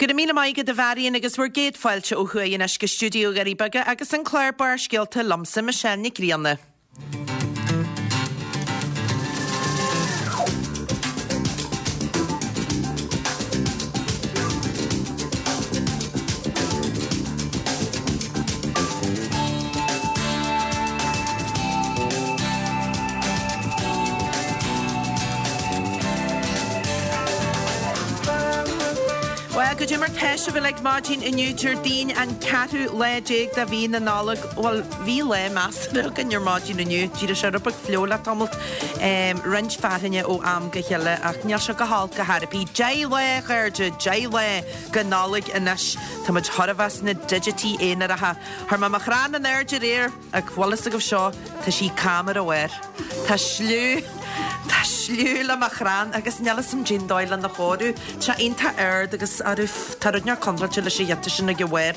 Go raibh míle maith agat a Mharion agus bhur gcéad fáilte ó thuaidh anois go stiúideo Dhoirí Beaga agus an clár Barrscéalta liomsa, Michelle Nic Grianna. Bhuel, goidé mar tá sibh uilig maidin inniu, Déardaoin an ceathrú lá déag de mhí na Nollag. Bhuel, bhí lá measartha againn ar maidin inniu. D'éirigh sé rud beag fliuch le tamalt, roinnt fearthainne ó am go chéile ach níl sé go holc ar chor ar bith. 10 lá, a chairde, 10 lá go Nollaig anois. Tá muid chóir a bheith sna digití aonaracha. Chuir mé mo chrann in airde aréir. Ach bhfuil fhios agaibh seo, tá sí cam ar a bharr. Tá sliú, tá sliú le mo chrann agus níl fhios a'm cén dóigh lena chóiriú. Tá sé iontach ard agus arú, tá rud inteacht contráilte leis an ghiota sin ag a bharr.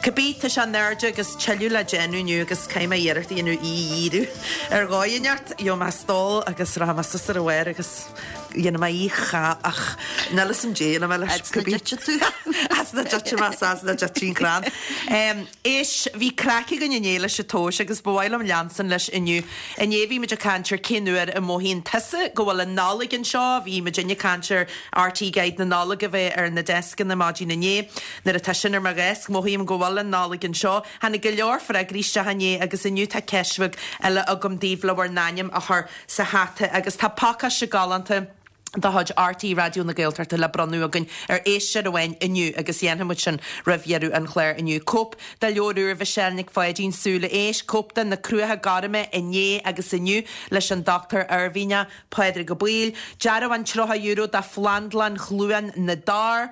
Cibé, tá sé in airde agus tuilleadh le déanamh inniu agus caithfidh mé iarracht a dhéanamh í a dhíriú ar dhóigh inteacht. Gheobhaidh mé stól agus rachaidh mé suas ar a bharr agus dhéanfaidh mé í cha ach níl fhios a'm dé dhéanfaidh mé leis. As na dtitfidh tú. As na dtitfidh mé, as na dtitfidh an crann. Éist, bhí craic againn inné leis an tomhais agus ba mhaith liom leanstan leis inniu. Inné bhí muid ag caint ar cén uair a mothaíonn tusa go bhfuil an Nollaig anseo, bhí muidinne ag caint ar RTÉ Guide na Nollag a bheith ar na deascanna maidin inné. Nuair atá sin ar mo dheasc, mothaím go bhfuil an Nollaig anseo. Tháinig go leor freagraí isteach inné agus inniu tá ceist bheag eile agam daoibh le bhur n-ainm a chur sa hata agus tá pacáiste galánta de chuid RTÉ Raidió na Gaeltachta le bronnadh againn ar éisteoir amháin inniu agus dhéanfaidh muid sin roimh dheireadh an chláir inniu. Cóip de leabhar úr Mhichelle Nic Pháidín, Súile Éisc, cóip de Na Cruacha Gorma inné agus inniu leis an Dochtúir Oirmhinneach Pádraig Ó Baoill, dearbhán €30 do Phlandlann Chluain na dTor,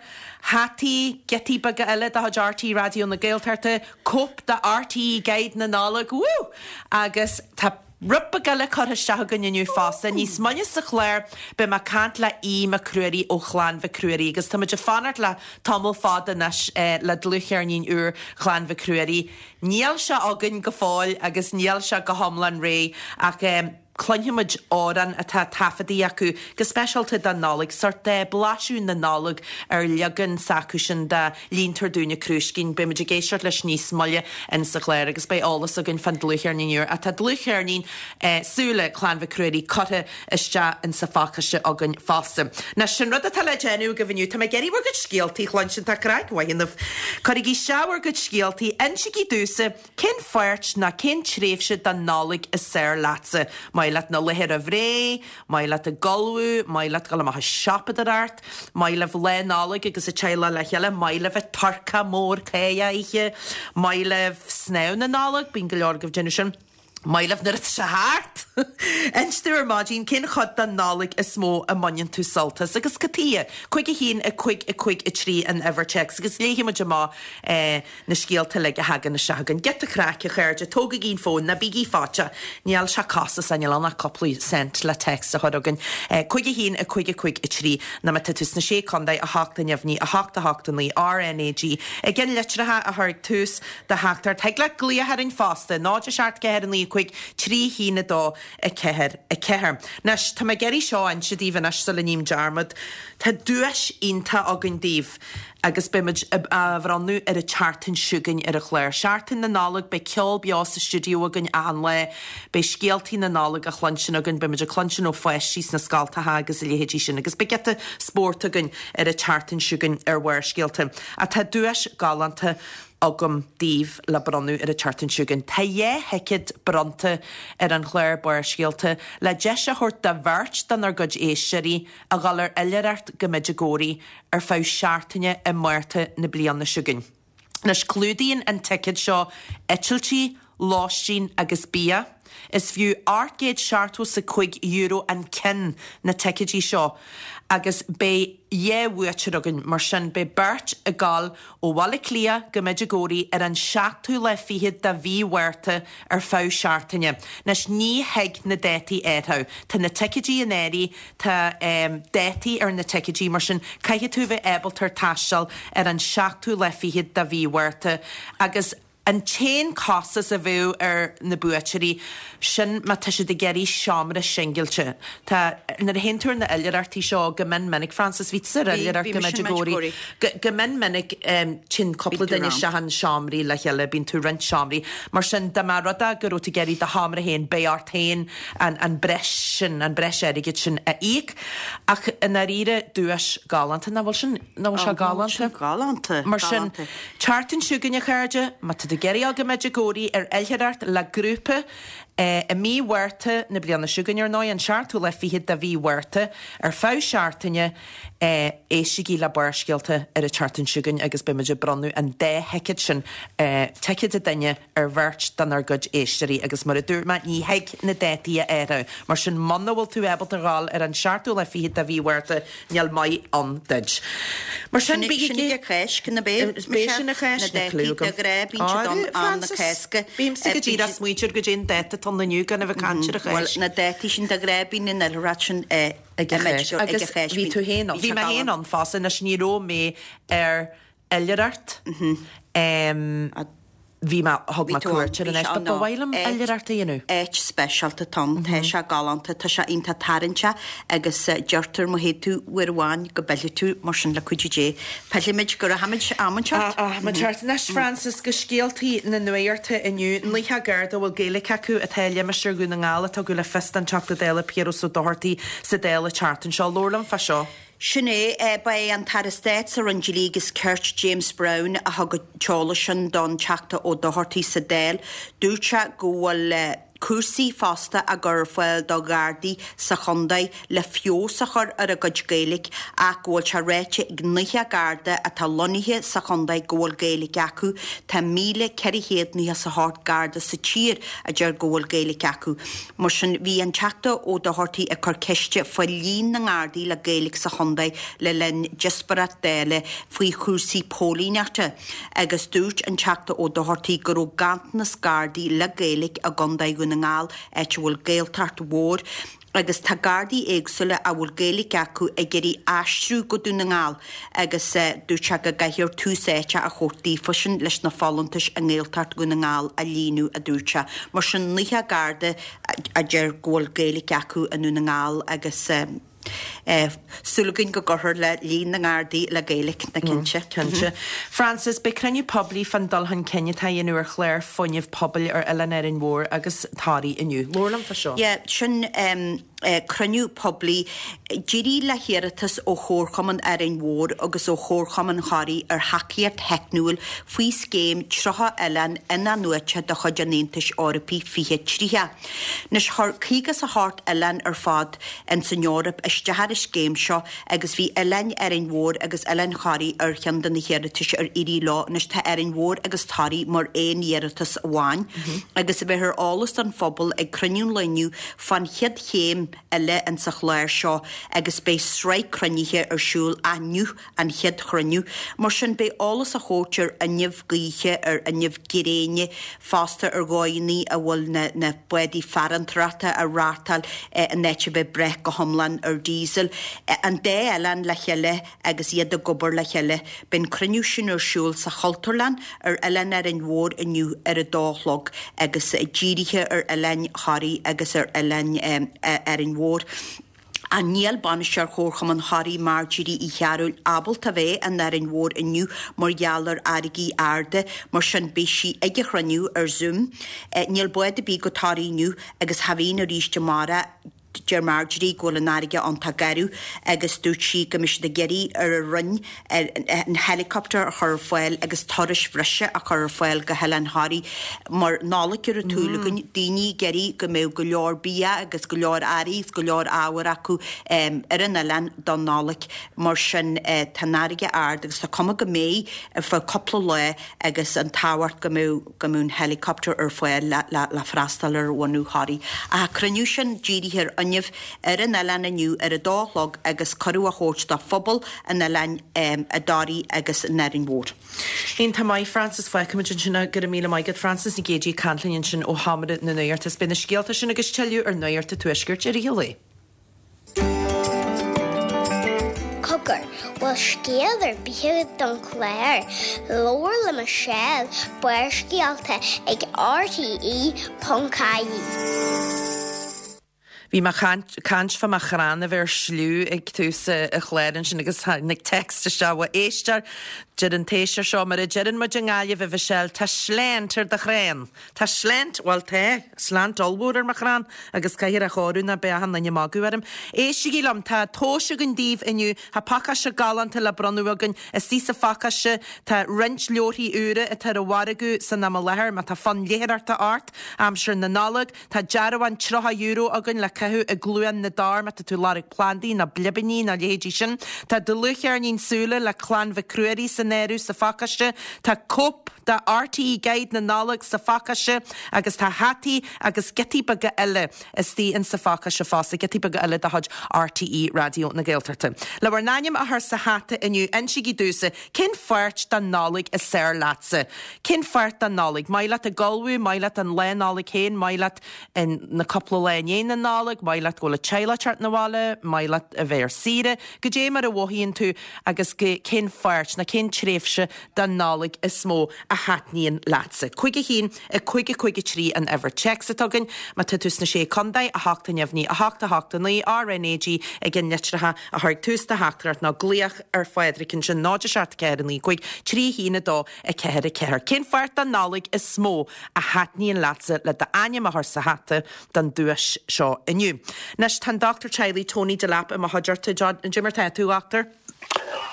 hataí, giotaí beaga eile de chuid RTÉ Raidió na Gaeltachta, cóip de RTÉ Guide na Nollag, woo! Agus tá. Rud beag eile curtha isteach againn inniu fosta. Níos moille sa chlár beidh mé ag caint le Aodh Mac Ruairí ó Chlann Mhic Ruairí agus tá muid ag fanacht le tamall fada anois le dlúthcheirnín úr Chlann Mhic Ruairí. Níl sé againn go fóill agus níl sé go hiomlán réidh ach cluinfidh muid amhrán atá taifeadta acu go speisialta don Nollaig, sórt blaiseadh na Nollag ar leagan s'acusan de Líontar Dúinne Crúiscín. Beidh muid ag éisteacht leis níos moille in sa chlár agus beidh eolas againn fán dlúthcheirnín úr. Ach tá dlúthcheirnín Súile Chlann Mhic Ruairí curtha isteach in sa phacáiste againn fosta. Anois, sin rud atá le déanamh agaibh inniu. Tá mé ag iarraidh bhur gcuid scéaltaí a chluinstin. Tá craic mhaith ionaibh. Cuirigí isteach bhur gcuid scéaltaí. Insígí domhsa Cén pháirt ná cén tréimhse den Nollaig is fearr leatsa? Maith leat na laetha roimh ré? Maith leat ag ullmhú? Maith leat dul amach ag siopadóireacht? Maith libh Lá Nollag agus an teaghlach le chéile? Maith libh an turcaí mór cáidheach a ithe? Maith libh snámh na Nollag? Bíonn go leor agaibh ag déanamh sin. Maith libh nuair atá sé thart! Inis domh ar maidin cén chuid den Nollaig is mó a mbaineann tú sult as agus cad tuighe? 5 1 5 5 3 an uimhir téacs agus léifidh muid amach na scéalta uilig a thagann isteach chugainn. Giota craic, a chairde, tógaigí an fón, ná bígí faitíoch. Níl sé costasach, níl ann ach cúpla cent le text a chur chugainn. 5 1 5 5 3 nó má tá tú sna Sé Contae, 8 neamhní, 8 8 9 RNAG. I gceannlitreacha a chur ag tús do theachtaireacht. Thig leat glaoch orainn fosta, 0 7 4 9 5 3 1 2 4 4. Anois, tá mé ag iarraidh seo a inse daoibh anois sula ním dearmad. Tá duais iontach againn daoibh agus beidh muid á bhronnadh ar an tseachtain seo chugainn ar an chlár. Seachtain na Nollag, beidh ceol beo sa stiúideo againn achan lá, beidh scéaltaí na Nollag á chluinstin againn, beidh muid ag cluinstin ó pháistí sna scoltacha agus a leithéidí sin agus beidh giota spóirt againn ar an tseachtain seo chugainn ar Bharrscéalta. Ach tá duais galánta agam daoibh le bronnadh ar an tseachtain seo chugainn. Tá 2 thicéad bronnta ar an chlár Barrscéalta le deis a thabhairt do bheirt denár gcuid éisteoirí a dhul ar oilithreacht go Medjugorje ar feadh seachtaine i Márta na bliana seo chugainn. Anois, clúdaíonn an ticéad seo eitiltí, lóistín agus bia. Is fiú €875 an ceann na ticéidí seo agus beidh 2 bhuaiteoir againn, mar sin beidh beirt ag dul ó Bhaile Átha Cliath go Medjugorje ar an seachtú lá fichead de mhí Mhárta ar feadh seachtaine. Anois ní thig na dátaí a athrú. Tá na ticéidí in áirithe, tá dátaí ar na ticéidí, mar sin caithfidh tú a bheith ábalta taisteal ar an seachtú lá fichead de mhí Mhárta agus. An t-aon costas a bheadh ar na buaiteoirí, sin má tá siad ag iarraidh seomra singilte. Tá, nuair a théann tú ar na oilithreachtaí seo go mion minic, Frances, bhí tusa ar oilithreacht go Medjugorje, go mion minic téann cúpla duine isteach in seomraí le chéile, bíonn tú ag roinnt seomraí. Mar sin, dá mba rud é go raibh tú ag iarraidh do sheomra féin, beidh ort féin an breis sin, an breis airgid sin a íoc. Ach i ndáiríre, duais galánta, nach bhfuil sin, nach bhfuil sé galánta? Galánta, Mar sin, tseachtain seo chugainn, a chairde, má tá tú ag iarraidh dul go Medjugorje ar oilithreacht le grúpa, i mí Mhárta na bliana seo chugainn, ar ndóigh, an seachtú lá fichead de mhí Mhárta, ar feadh seachtaine, éistigí le Barrscéalta ar an tseachtain seo chugainn agus beidh muid ag bronnadh an dá thicéad sin, ticéad an duine, ar bheirt denár gcuid éisteoirí agus mar a dúirt mé, ní thig na dátaí a athrú. Mar sin, muna bhfuil tú ábalta a ghabháil ar an seachtú lá fichead de mhí Mhárta, níl maith ann duit. Mar sin, bígí. Sin ag an Cháisc, nó b'é? B'é sin an Cháisc, Na dátaí de ghnáth, bíonn siad ann am na Cásca. Bímse go díreach ag smaointiú ar goidé an dáta atá ann inniu gan a bheith ag caint ar an Cháisc. Bhuel, na dátaí sin de ghnáth bíonn an oilithreacht sin ag an Cháisc. Agus bhí tú féin ann. Bhí mé féin ann fosta. Anois, ní raibh mé ar oilithreacht. Bhí mé, thug mé cuairt ar an áit, but ba mhaith liom oilithreacht a dhéanamh. Áit speisialta atá ann, tá sé galánta, tá sé iontach tarraingteach agus deirtear má théid tú uair amháin go bpillfidh tú, mar sin le cuidiú Dé pillfimid, go rachaimid am inteacht. Am inteacht. Anois Frances, go scéaltaí na nuachta inniu. 90 Garda a bhfuil Gaeilge acu atá i limistéar Dhún na nGall a tugadh le fios don Teachta Dála Piaras Ó Dochartaigh sa Dáil an tseachtain seo. Labhair liom fá seo. Sin é. Ba é an tAire Stáit sa Roinn Dlí agus Cirt, James Browne, a thug an t-eolas sin don Teachta Ó Dochartaigh sa Dáil. Dúirt sé go bhfuil cúrsaí fosta á gcur ar fáil do Ghardaí sa chontae le feabhas a chur ar a gcuid Gaeilge ach go bhfuil sé ráite ag 90 Garda atá lonnaithe sa chontae go bhfuil Gaeilge acu. Tá 1,498 Garda sa tír a deir go bhfuil Gaeilge acu. Mar sin, bhí an Teachta Ó Dochartaigh ag cur ceiste faoi líon na nGardaí le Gaeilge sa chontae le linn díospóireacht Dála faoi chúrsaí póilíneachta agus dúirt an Teachta Ó Dochartaigh go raibh ganntanas Gardaí le Gaeilge i gContae Dhún na nGall, áit a bhfuil Gaeltacht mhór. Agus tá Gardaí éagsúla a bhfuil Gaeilge acu ag iarraidh aistriú go Dún na nGall agus dúirt sé go gcaithfear tús áite a thabhairt daofa sin leis na folúntais i nGaeltacht Dhún na nGall a líonadh, a dúirt sé. Mar sin, 90 Garda a deir go bhfuil Gaeilge acu i nDún na nGall agus súil againn go gcuirfear le líon na nGardaí le Gaeilge, ná cinnte. Cinnte. Frances, beidh cruinniú poiblí fán dul chun cinn atá á dhéanamh ar chlár fuinnimh pobail ar Oileán Árainn Mhór agus Thoraí inniu. Labhair liom fá seo. Yeah, sin cruinniú poiblí. D'éirigh le hiarratas ó Chomharchumann Árainn Mhór agus ó Chomharchumann Thoraí ar thacaíocht theicniúil faoi Scéim 30 Oileán In-athnuaite de chuid an Aontais Eorpaigh 2030. Anois, chuir 58 oileán ar fad ins an Eoraip isteach ar an scéim seo agus bhí Oileáin Árainn Mhór agus Oileán Thoraí ar cheann de na hiarratais ar éirigh leo. Anois tá Árainn Mhór agus Toraigh mar aon iarratas amháin agus beifear eolas don phobal ag cruinniú an lae inniu fán chéad chéim eile insa chlár seo agus beidh sraith cruinnithe ar siúl inniu an chéad chruinniú. Mar sin, beidh eolas á thabhairt ar fhuinneamh gaoithe, ar fhuinneamh gréine, fosta ar dhóigheanna a bhfuil na na bádaí farantóireachta á reáchtáil in áit a bheith ag brath go hiomlán ar diesel. An dá oileán le chéile agus iad ag obair le chéile. Beidh an cruinniú sin ar siúl sa Chultúrlann ar Oileán Árainn Mhór inniu ar a dó a chlog agus dírithe ar Oileán Thoraí agus ar Oileán Árainn Mhór. Ach níl bainisteoir Chomharchumann Thoraí Marjorie Uí Chearúil ábalta bheith in Árainn Mhór inniu mar gheall ar fharraigí arda, mar sin beidh sí ag an chruinniú ar Zoom. Níl bád ar bith go Toraigh inniu agus cha bhíonn arís amárach. Deir Marjorie go bhfuil an fharraige iontach garbh agus dúirt sí go mbeidh siad ag iarraidh ar an Roinn an helicopter a chur ar fáil agus turais bhreise a chur ar fáil go hOileán Thoraí mar Nollaig ar an tsúil againn, daoine ag iarraidh go mbeadh go leor bia agus go leor earraí agus go leor ábhar acu ar an oileán don Nollaig. Mar sin tá an fharraige ard agus tá cuma go mbeidh ar feadh cúpla lá agus an tábhacht go mbeadh go mbeadh an helicopter ar fáil le freastal ar bhunadh Thoraí. Ach an cruinniú sin dírithe ar fhuinneamh ar an oileán inniu ar a dó a chlog agus cuireadh á thabhairt do phobal an oileáin i dToraí agus in Árainn Mhór. Iontach maith, Frances. Fágfaimid ansin é. Go raibh míle maith agat, Frances Nic Géadaigh ag caint linn ansin ó Sheomra na Nuachta. Is beidh na scéalta sin agus tuilleadh ar Nuacht an Tuaiscirt i rith an lae. Cogar. Bhfuil scéal ar bith agat don chlár? Labhair le Michelle, Barrscéalta ag rte.ie. Bhí mé ag caint fá mo chrann a bheith ar sliú ag tús an chláir ansin agus tháinig text isteach ó éisteoir. Deir an t-éisteoir seo, mar a deireann muid i nGaillimh, a Mhichelle, tá slant ar do chrann! Tá slant, bhuel tá, slant ollmhór ar mo chrann agus caithfear é a chóiriú nó beidh achan duine ag magadh orm. Éistigí liom, tá tomhais againn daoibh inniu, tá pacáiste galánta le bronnadh againn. Istigh sa phacáiste tá roinnt leabharthaí úra atá ar an mhargadh san am i láthair, má tá fonn léitheoireachta ort aimsir na Nollag. Tá dearbhán €30 againn le caitheamh i gCluain na dTor má tá tú ag lorg plandaí nó blibíní nó a leithéidí sin. Tá dlúthcheirnín Súile le Clann Mhic Ruairí san áireamh sa phacáiste. Tá cóip de RTÉ Guide na Nollag sa phacáiste agus tá hataí agus giotaí beaga eile istigh in sa phacáiste fosta, giotaí beaga eile de chuid RTÉ Raidió na Gaeltachta. Le bhur n-ainm a chur sa hata inniu, insígí domhsa Cén pháirt den Nollaig is fearr leatsa? Cén pháirt den Nollaig? Maith leat ag ullmhú, maith leat an lá Nollag féin, maith leat na cúpla lá i ndiaidh na Nollag, maith leat go bhfuil an teaghlach ag teacht 'na bhaile, maith leat a bheith ar saoire. Goidé mar a mhothaíonn tú agus cén pháirt nó cén tréimhse den Nollaig is mó a thaitníonn leatsa? 5 1 5 5 3 an uimhir téacs atá againn. Má tá tú sna Sé Contae, 8 neamhní 8 8 9 RNAG ag an litreacha a chur ag tús do theachtaireacht nó glaoch ar Phádraig ansin 0 7 4 9 5 3 1 2 4 4. Cén pháirt den Nollaig is mó a thaitníonn leatsa le d'ainm a chur sa hata don duais seo inniu? Anois tá an Dochtúir Teaghlaigh Tony Delap i mo chuideachta. Cad é mar tá tú, a Dhochtúir?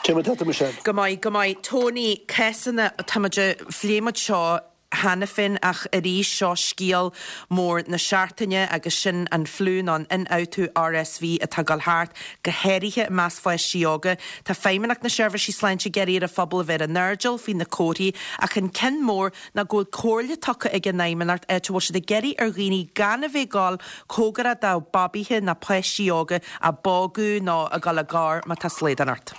Cad é mar tá tú, Michelle? Go maith, go maith. Tony, cásanna, tá muid, phléigh muid seo cheana féin ach arís seo scéal mór na seachtaine agus sin an fliú nó an ionfhabhtú RSV atá ag dul thart, go háirithe i measc pháistí óga. Tá Feidhmeannacht na Seirbhísí Sláinte ag iarraidh ar an phobal a bheith ar a n-airdeall faoi na comharthaí ach an ceann mór ná go bhfuil comhairle tugtha ag an Fheidhmeannacht áit a bhfuil siad ag iarraidh ar dhaoine gan a bheith ag dul cóngarach do babaithe ná páistí óga á bpógadh nó ag dul i ngar má tá slaghdán ort.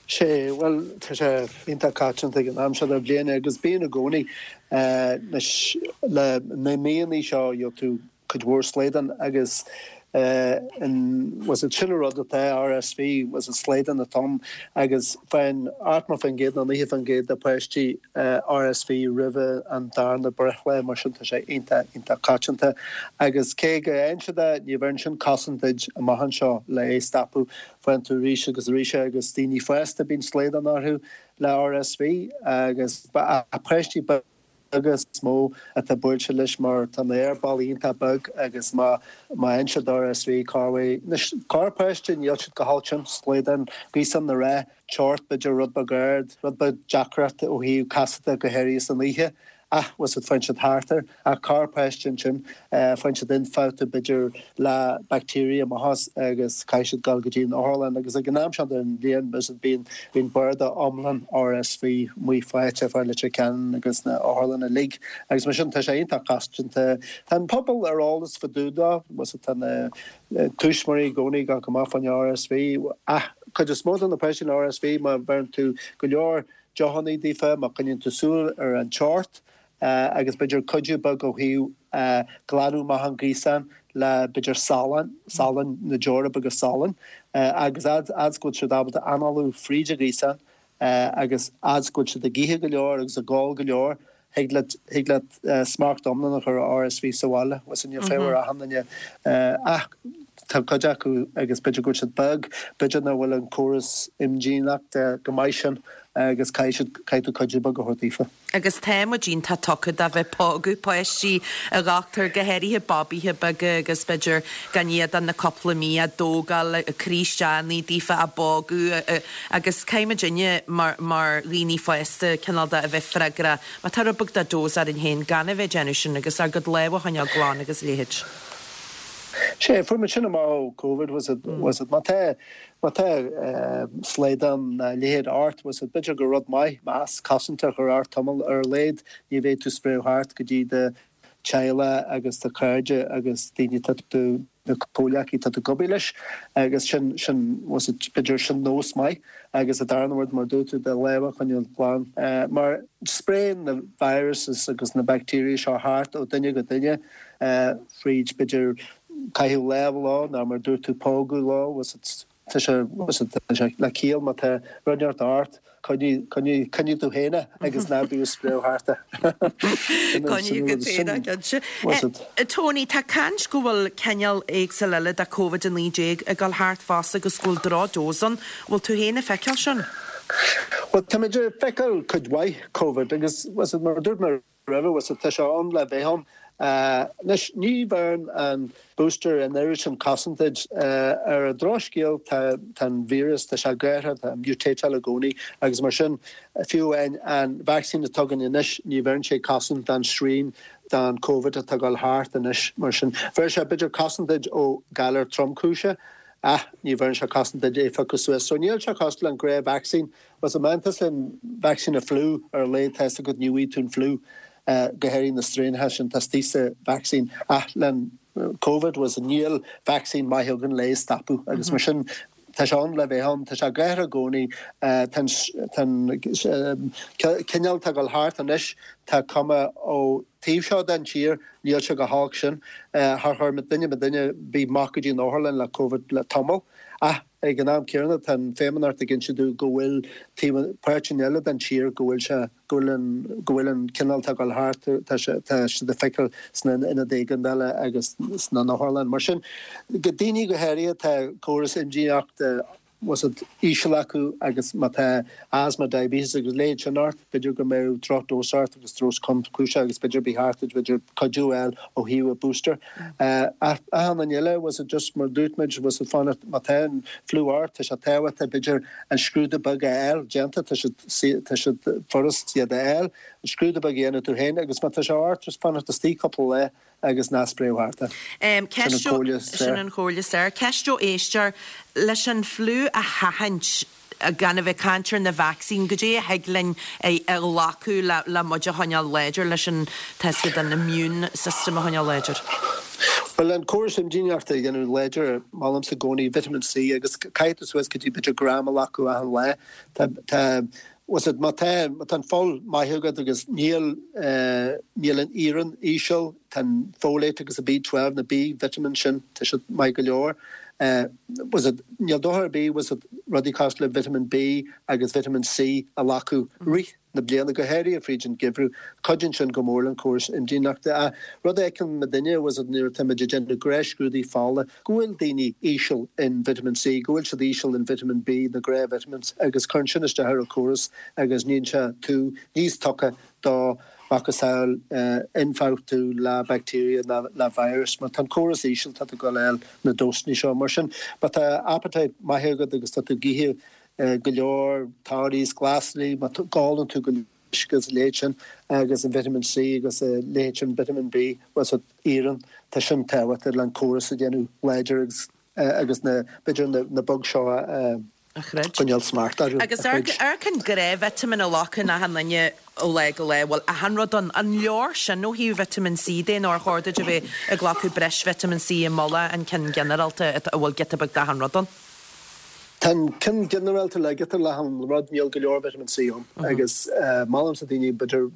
Sé, bhuel, tá sé iontach coitianta ag an am seo den bhliain agus bíonn i gcónaí. Anois, le na míonna seo, gheobhaidh tú cuid mhór slaghdán agus an, bhfuil fhios a'd, sin an rud atá, RSV, bhfuil fhios a'd, slaghdán atá ann agus faigheann 80% nó 90% de pháistí RSV roimhe an darna breithlá, mar sin tá sé iontach, iontach coitianta. Agus cé go bhfaigheann siad é, ní bheireann sin cosaint duit amach anseo le é a stopadh. Faigheann tú arís agus arís é agus daoine fásta bíonn slaghdán orthu le RSV agus páistí beaga is mó atá buailte leis mar tá na haerballaí iontach beag agus má má fhaigheann siad RSV corruair anois corrpháiste níl siad chomh holc sin slaghdán gaosán na rá teocht b'fhéidir rud beag ard rud beag deacracht ó thaobh casadh go háirithe san oíche Ach, bhfuil fhios a'd, faigheann siad thart air. Ach corrpháiste ansin, faigheann siad ionfhabhtú b'fhéidir le bacteria amach as agus caithfidh siad dul go dtí an otharlann. Agus ag an am seo den bhliain, bhfuil fhios a'd, bíonn, bíonn barda iomlán RSV amuigh faighte fá Leitir Ceanainn agus na otharlanna uilig. Agus mar sin, tá sé iontach coitianta. Tá an pobal ar eolas fá dtaobh dó, bhfuil fhios a'd, tá na tuismitheoirí i gcónaí ag gabháil amach fán RSV. Ach cuid is mó de na páistí le RSV, má bheireann tú go leor deochannaí daofa, má choinníonn tú súil ar an teocht agus b'fhéidir cuidiú beag ó thaobh glanadh amach an ghaosán le b'fhéidir salann, salann, na deora beaga salainn agus fhad is go bhfuil siad ábalta análú fríd an ghaosán agus fhad is go bhfuil siad ag ithe go leor agus ag ól go leor, thig leat, thig leat smacht iomlán a chur ar RSV sa bhaile. Bhfuil fhios a'd, níl fear ar achan duine ach tá cuid acu agus b'fhéidir go bhfuil siad beag, b'fhéidir nach bhfuil an córas imdhíonachta chomh maith sin agus caithfidh siad, caithfidh tú cuidiú beag a thabhairt daofa. Agus tá muid iontach tugtha do bheith ag pógadh páistí, a dhochtúir, go háirithe babaithe beaga agus b'fhéidir gan iad ach na cúpla mí á dtógáil, ag croí isteach ina daofa, á bpógadh agus caithfidh muidinne mar, mar dhaoine fásta cineál de a bheith freagrach má tá rud beag de dose orainn féin gan a bheith ag déanamh sin agus ár gcuid lámha a choinneáil glan agus a leithéid. Sea, fuair muid sin amach ó Covid, bhfuil fhios a'd, bhfuil fhios a'd, má tá, má tá slaghdán nó a leithéid ort, bhfuil fhios a'd, b'fhéidir gur rud maith masc cosanta a chur ort tamall ar a laghad, ní bheidh tú ag spréadh thart go dtí do theaghlach agus do chairde agus daoine atá tú, na comhleacaí atá tú ag obair leis agus sin, sin, bhfuil fhios a'd, b'fhéidir sin nós maith agus an darna rud mar a dúirt tú, do lámha a choinneáil glan mar spréann na viruses agus na bacteria seo thart ó duine go duine fríd b'fhéidir caitheamh lámh leo nó mar a dúirt tú pógadh leo, bhfuil fhios a'd. Tá sé, tá sé le ciall má tá rud inteacht ort, coinnigh, coinnigh, coinnigh tú féin é agus ná bí ag spréadh thart é. Coinnigh agat féin é, cinnte. Tony, tá caint go bhfuil cineál éagsúil eile de Covid-19 ag dul thart fosta agus go bhfuil drochdose ann. Bhfuil tú féin ag feiceáil sin? Bhuel, táimid ag feiceáil cuid mhaith Covid agus, mar a dúirt mé roimhe, bhfuil tá sé ann le bheith ann. Anois, ní bheireann an booster an oiread sin cosaint duit. Ar an drochscéal, tá an víreas, tá sé ag athrú, tá mutateáil i gcónaí agus mar sin, fiú amháin an vacsaín atá againn anois, ní bheireann sé cosaint don srian don Covid atá ag dul thart anois. Mar sin, bheir sé b'fhéidir cosaint duit ó galar tromchúiseach ach ní bheireann sé cosaint duit é a phiocadh suas. So níl sé cosúil le an gnáth-vacsaín. Bhuel má fhaigheann tusa an vacsaín an fliú ar a laghad tá fhios agat ní bhfaighidh tú an fliú, go háirithe na straenacha sin atá istigh sa vacsaín. Ach le Covid bhuel níl vacsaín maith againn le é a stopadh agus mar sin tá sé ann le bheith ann, tá sé ag athrú i gcónaí, tá an cineál atá ag dul thart anois, tá cuma ó taobh seo den tír, níl sé chomh holc sin. Char chuir duine duine ar bith amach go dtí an otharlann le Covid le tamall ach Ag an am céanna, tá an Feidhmeannacht ag inse dúinn go bhfuil taobh, páirteanna eile den tír go bhfuil sé, go bhfuil an, go bhfuil an cineál atá ag dul thart, tá sé, tá siad ag feiceáil sna ionaid éigeandála agus sna n-otharlann. Mar sin, go daoine go háirithe, tá córas imdhíonachta, bhfuil fhios agat, íseal acu agus má tá asthma, diabetes agus a leithéid sin ort, b'fhéidir go mbeadh drochdose ort agus drochdose tromchúiseach agus b'fhéidir ba cheart duit b'fhéidir cuidiú a fháil ó thaobh an booster. Ach achan duine eile, bhfuil fhios agat, just mar dúirt muid, bhfuil fhios agat, fanacht, má tá an fliú ort, tá sé tábhachtach b'fhéidir an scrúdú beag a fháil déanta, tá siad, tá siad furast iad a fháil, an scrúdú beag a dhéanamh tú féin agus má tá sé ort, just fanacht istigh cúpla lá agus ná spréadh thart é. Sin an chomhairle is fearr. Sin an chomhairle is fearr. Ceist ó éisteoir, leis an fliú a sheachaint, gan a bheith ag caint ar na vacsaíní, goidé a thig linn a ghlacadh le muid a choinneáil láidir, leis an, tá fhios agat, an immune system a choinneáil láidir? Bhuel, an córas imdhíonachta a dhéanamh láidir, molaimse i gcónaí vitamin C agus caithfidh tú suas go dtí b'fhéidir gram a ghlacadh achan lá. Tá, tá, bhfuil fhios agat, má tá, má tá an fuil maith agat agus níl, níl an iarann íseal, tá an folate agus an B12, na B vitamins sin, tá siad maith go leor. Bhfuil fhios agat, níl dochar ar bith, bhfuil fhios agat, rudaí cosúil le vitamin B agus vitamin C a ghlacadh rith na bliana, go háirithe fríd an geimhreadh. Cuidíonn sin go mór le an córas imdhíonachta. Ach rud a fheiceann muidinne, bhfuil fhios agat, nuair atá muid ag déanamh gnáthscrúduithe fola, go bhfuil daoine íseal in vitamin C, go bhfuil siad íseal in vitamin B, na gnáth-vitamins, agus cuireann sin isteach ar an córas agus níonn sé tú níos tugtha do macasamhail ionfhabhtú le bacteria ná le virus. Má tá an córas íseal tá tú ag dul a fháil na dósanna seo. Mar sin má tá appetite maith agat agus tá tú ag ithe go leor torthaí is glasraí, má ólann tú go leor uisce agus a leithéid sin agus an vitamin C agus a leithéid sin vitamin B, bhfuil fhios agat, iarann, tá sin tábhachtach le an córas a dhéanamh láidir agus agus na b'fhéidir na bugs seo a a choinneáil smacht orthu. Agus amharc an gnáth-vitamin a ghlacann achan duine ó lá go lá, bhfuil achan rud ann. An leor sin ó thaobh vitamin C de nó ar chóir duit a bheith ag glacadh breis vitamin C i mullach an ceann ginearálta a bhfuil giota beag d'achan rud ann? Tá an ceann ginearálta le giota d'achan rud, níl go leor vitamin C ann agus molaimse daoine b'fhéidir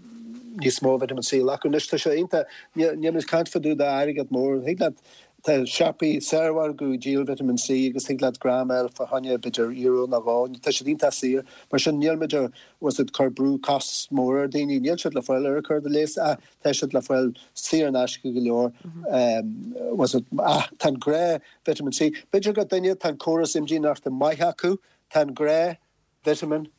níos mó vitamin C a ghlacadh. Anois tá sé iontach, níl muid ag caint fá dtaobh d'airgead mór, thig leat Tá siopaí saormhargadh ag díol vitamin C agus thig leat gram a fháil fá choinne b'fhéidir euro nó dhó. Tá siad iontach saor. Mar sin níl muid a bhfuil fhios agat cur brú costas mór ar daoine. Níl siad le fáil ar an cur de léas ach tá siad le fáil saor in aisce go leor. Bhfuil fhios agat ach tá an gnáth vitamin C. B'fhéidir go duine tá an córas imdhíonachta maith acu, tá an gnáth vitamin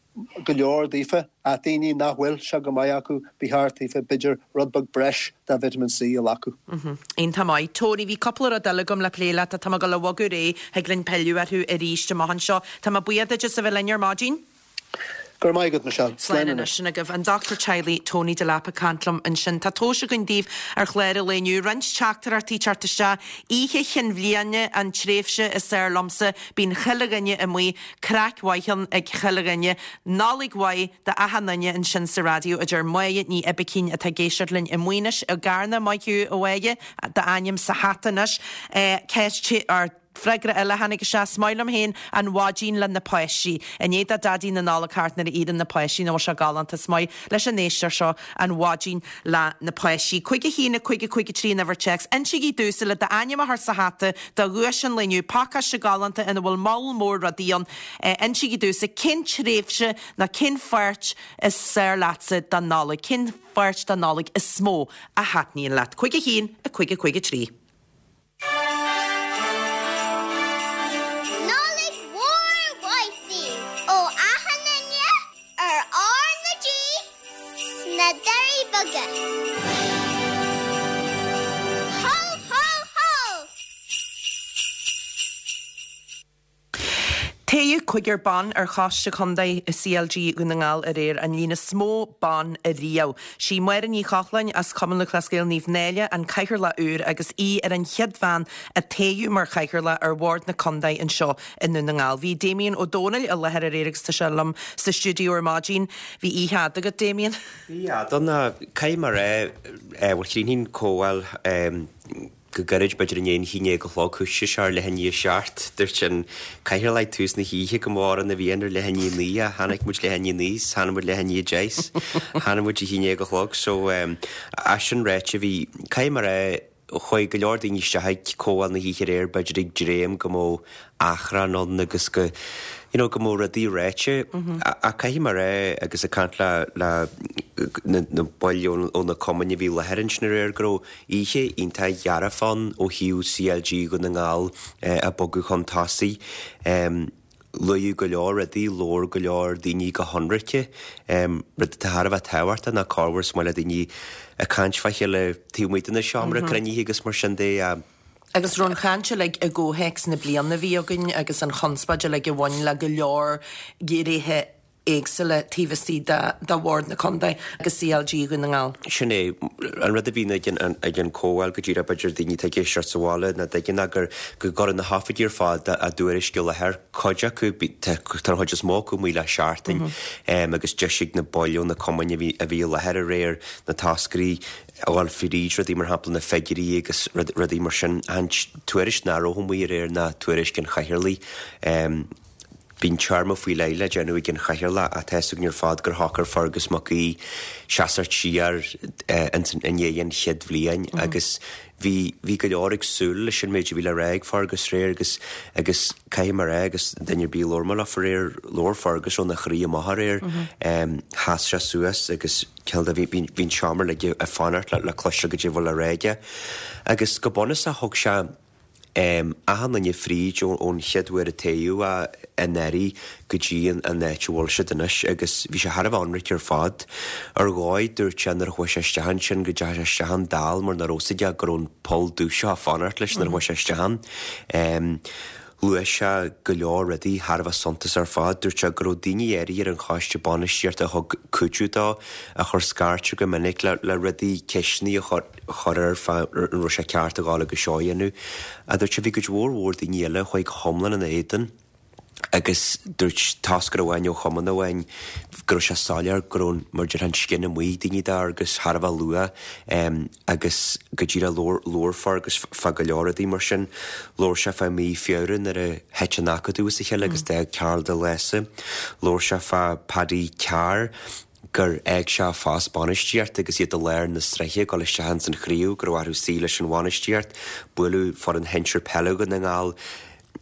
go leor daofa, ach daoine nach bhfuil sé go maith acu, ba cheart daofa, b'fhéidir, rud beag breis de vitamin C a ghlacadh. Iontach maith. Tony, bhí cúpla rud eile agam le plé leat ach tá mé ag dul a bhogadh ar aghaidh, thig linn pilleadh orthu arís amach anseo. Tá mé buíoch duit as a bheith linn ar maidin. Go raibh maith agat, Michelle. Slán anois. Sin agaibh an dochtúir teaghlaigh Tony Delap ag caint liom ansin. Tá tomhais againn daoibh ar chlár an lae inniu. Roinnt teachtaireachtaí teacht isteach. Oíche Chinn Bhliana an tréimhse is fearr liomsa. Bíonn chuile dhuine amuigh. Craic mhaith ann ag chuile dhuine. Nollaig mhaith do achan duine ansin sa raidió, a deir Máire Ní Oibicín atá ag éisteacht linn i Maínis i gCarna. Maith thú, a Mháire, d'ainm sa hata anois. Ceist, or. Freagra eile a tháinig isteach, Is maith liom féin an mhaidin le na páistí. I ndiaidh do Daidí na Nollag theacht nuair a iarrann na páistí nach bhfuil sé galánta. Is maith leis an éisteoir seo an mhaidin le na páistí. 5 1 5 5 3 an uimhir téacs. Insígí domhsa le d'ainm a chur sa hata do dhuais an lae inniu, pacáiste galánta ina bhfuil moll mór rudaí ann. Insígí domhsa cén tréimhse nó cén pháirt is fearr leatsa den Nollaig, cén pháirt den Nollaig is mó a thaitníonn leat. 5 1 5 5 3. Nollaig mhór mhaith daoibh ó achan duine ar R na G sna Doirí Beaga. Hó hó hó! Toghadh cúigear ban ar Choiste Contae CLG Dhún na nGall aréir, an líon is mó ban ariamh. Sí Máire Ní Chochláin as Cumann Lúthchleas Gael Naomh Náille an Cathaoirleach úr agus í ar an chéad bhean a toghadh mar Chathaoirleach ar Bhord na Contae anseo i nDún na nGall. Bhí Damien Ó Dónaill i láthair aréir agus tá sé liom sa stiúideo ar maidin. Bhí oíche fhada agat, Damien. Bhí, a Donna. Caithfidh mé a rá, bhuel chríochnaigh an comhdháil Go gairid, b'fhéidir i ndiaidh an haon déag a chlog, thoisigh sé ar leath i ndiaidh a seacht. Dúirt an cathaoirleach ag tús na hoíche go mba mhórán a bhí ann ar leath i ndiaidh a naoi ach tháinig muid leath i ndiaidh a naoi 's tháinig muid leath i ndiaidh a deich 's tháinig muid a haon déag a chlog. So, é sin ráite, bhí, caithfidh mé a rá, chuaigh go leor daoine isteach ag comhdháil na hoíche aréir, b'fhéidir ag dréim go mbeadh achrann ann agus go, you know, go mbeadh rudaí ráite. Ach caithfidh mé a rá, agus ag caint le, le na baill ó na cumainn a bhí i láthair ansin aréir, go raibh, Oíche iontach dhearfach ann ó thaobh CLG Dhún na nGall ag bogadh chun tosaigh. Luadh go leor rudaí, labhair go leor daoine go hionraice, rud atá thar a bheith tábhachtach ná corruair is maith le daoine ag caint fá chéile taobh amuigh de na seomra cruinnithe agus mar sin de. Agus raibh an chaint uilig i gcomhthéacs na bliana a bhí againn agus an chonspóid uilig a bhain le go leor gnéithe éagsúla taobh istigh de Bhord na Contae agus CLG Dhún na nGall. Sin é an rud a bhíonn ag an ag an comhdháil go díreach b'fhéidir daoine atá ag éisteacht sa bhaile nach dtuigeann ná gur go gcuireann na hoifigigh ar fad a dtuairisc i láthair, cuid acu, tá an chuid is mó acu amuigh le seachtain agus deis ag na baill ó na cumainn a bhí a bhí i láthair aréir na toscairí a dhul fríd rudaí mar shampla na figiúirí agus rudaí mar sin. An tuairisc nach raibh amuigh aréir ná tuairisc an chathaoirligh. Bíonn téarma faoi leith le déanamh ag an chathaoirleach ach tá fhios againn ar fad gur shocair Fergus Mac Aoidh seasacht siar ins i ndiaidh an chéad bhliain agus bhí bhí go leor ag súil leis an méid a bhí le rá ag Fergus aréir agus agus caithfidh mé a rá agus duine ar bith a labhair mé leofa aréir labhair Fergus óna chroí amach aréir sheas sé suas agus cineál de bhí bhí an seomra uilig ag fanacht le le cloisteáil goidé a bhfuil le rá aige agus go bunúsach thug sé achan duine fríd ón chéad uair a toghadh é anuraidh go dtí an áit a bhfuil siad anois agus bhí sé thar a bheith ionraic ar fad. Ar dhóigh, dúirt sé nuair a chuaigh sé isteach ansin go dteachaigh sé isteach ann dall mar nach raibh fhios aige go raibh an poll dubh seo ag fanacht leis nuair a chuaigh sé isteach ann. Luaigh sé go leor rudaí thar a bheith suntasach ar fad. Dúirt sé go raibh daoine áirithe ar an choiste bainistíochta a thug cuidiú dó, a chuir scairt air go minic le le rudaí, ceisteanna a chur air fá an raibh sé ceart a ghabháil agus seo a dhéanamh. Ach dúirt sé bhí cuid mhór mhór daoine eile a chuaigh go hiomlán ina éadan agus dúirt toscaire amháin ó chumann amháin go raibh sé soiléir go raibh, mar a déarfá, an scian amuigh ag daoine d'Fheargus thar a bheith luath. Agus go díreach labhair, labhair Fergus fá go leor rudaí mar sin. Labhair sé fá mí Feabhra nuair a thit an Acadamh as a chéile agus d'fhág Karl de Lása. Labhair sé fá Paddy Carr gur fhág sé a phost bainistíochta agus iad i lár na sraithe ag dul isteach ins an chraobh, go raibh orthu suí leis an bhainistíocht. Buaileadh foireann shinsir peile Dhún na nGall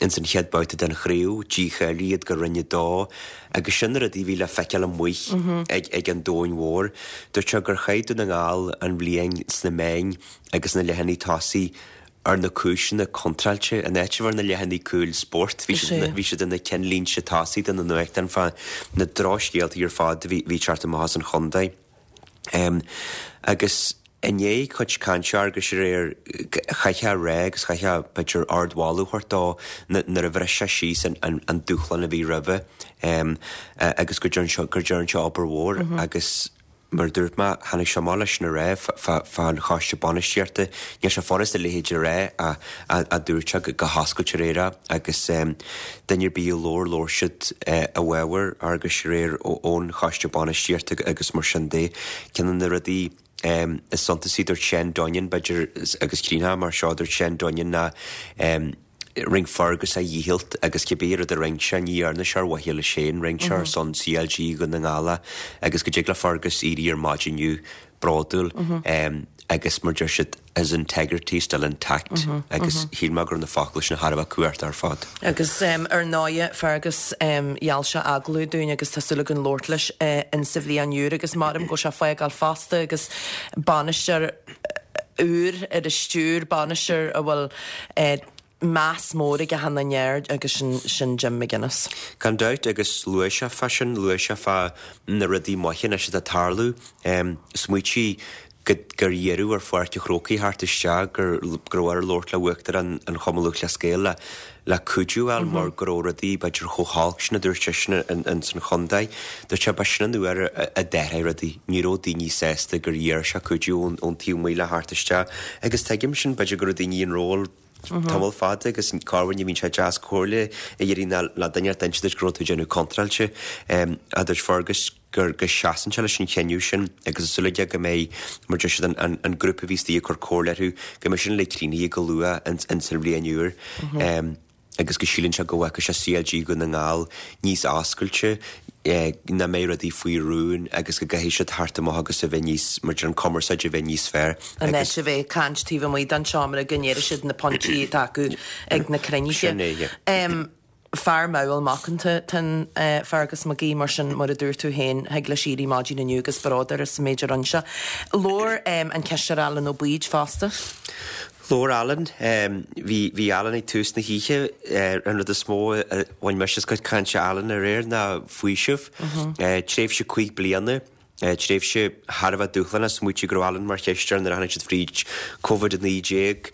ins an chéad babhta den chraobh, dícháilíodh iad go Roinn 2 agus sin na rudaí a bhí le feiceáil amuigh ag an domhain mhór. Dúirt sé gur chaith Dún na nGall an bhliain sna meáin agus na leathanaigh tosaigh ar na cúiseanna contráilte. In áit a bheith ar na leathanaigh cúil spóirt, bhí siad bhí siad ar na cinnlínte tosaigh de na nuachtáin fá na drochscéaltaí ar fad a bhí ag teacht amach as an chontae. Agus i ndiaidh cuid cainte Fhearghuis aréir, chaithfeá a rá agus chaithfeá b'fhéidir ardmholadh a thabhairt dó nuair a bhris sé síos an dúshlán a bhí roimhe agus go dtearn sé, go dtearn sé obair mhór agus mar a dúirt mé, tháinig sé amach leis sin aréir fán choiste bainistíochta. Níl sé furasta a leithéid a rá ach dúirt sé go hoscailte aréir é agus duine ar bith a labhair, labhair siad i bhfabhar Fhearghuis aréir ón choiste bainistíochta agus mar sin de. Ceann de na rudaí is suntasaí, dúirt Shane Dunnion, b'fhéidir, agus chríochnóidh mar seo, dúirt Shane Dunnion ná. Rinne Fergus a dhícheall agus cibé rud a rinne sé, ní dhearna sé ar mhaithe leis féin, rinne sé ar son CLG Dhún na nGall é agus go dtig le Fergus éirí ar maidin inniu bródúil agus mar deir siad his integrity is still intact agus shíl mé go raibh na focail sin thar a bheith cumhachtach ar fad. Agus ar ndóighe Fergus gheall sé agallamh dúinn agus tá súil againn labhairt leis insa bhliain úr agus maram go bhfuil sé ag fágáil fosta agus bainisteoir úr ar an stiúir, bainisteoir a bhfuil meas mór ag achan duine air agus sin, sin Jim McGuinness. Gan dabht, agus luaigh sé fá sin, luaigh sé fá na rudaí maithe anois atá ag tarlú. Smaoitigh go, gur iarradh ar Pháirc an Chrócaigh theacht isteach, gur, go raibh air labhairt le Uachtarán an Chumann Lúthchleas Gael le, le cuidiú a fháil mar go raibh rudaí b'fhéidir chomh holc sin a dúirt seisean in san chontae. Dúirt sé ba sin an uair a d'athraigh rudaí. Ní raibh daoine sásta gur iarr sé cuidiú ón taobh amuigh le theacht isteach agus tuigim sin, b'fhéidir go raibh daoine in ról tamall fada agus corruair ní bhíonn sé deas comhairle a iarraidh ná le duine ar inse duit go raibh tú ag déanamh contráilte. A dúirt Fergus gur go seasann sé leis an chinneadh sin agus tá súil aige go mbeidh, mar deir siad, an an grúpa a bhí istigh ag cur comhairle orthu, go mbeidh sin uilig críochnaithe go luath ins an bhliain úr agus go síleann sé go bhfeicfidh sé CLG Dhún na nGall níos oscailte, nach mbeidh rudaí faoi rún agus go gcaithfidh siad theacht amach agus a bheith níos, mar deir an cumarsáid a bheith níos fearr In áit a bheith ag caint taobh amuigh den seomra go ndéarfaidh siad na pointí atá acu ag na cruinnithe. Sin é, yeah. Fear mall macánta atá in Fergus McGee, mar sin, mar a dúirt tú féin, thig leis éirí maidin inniu agus bród air as an méid a rinne sé. Labhair an Cisteoir Alan Ó Baoid fosta. Labhair Alan. Bhí, bhí Alan ag tús na hoíche. An rud is mó a bhain mise as cuid cainte Alan aréir ná faoiseamh. Tréimhse 5 bliana. Tréimhse thar a bheith dúshlánach, smaoitigh go raibh Alan mar chisteoir nuair a tháinig siad fríd Covid-19,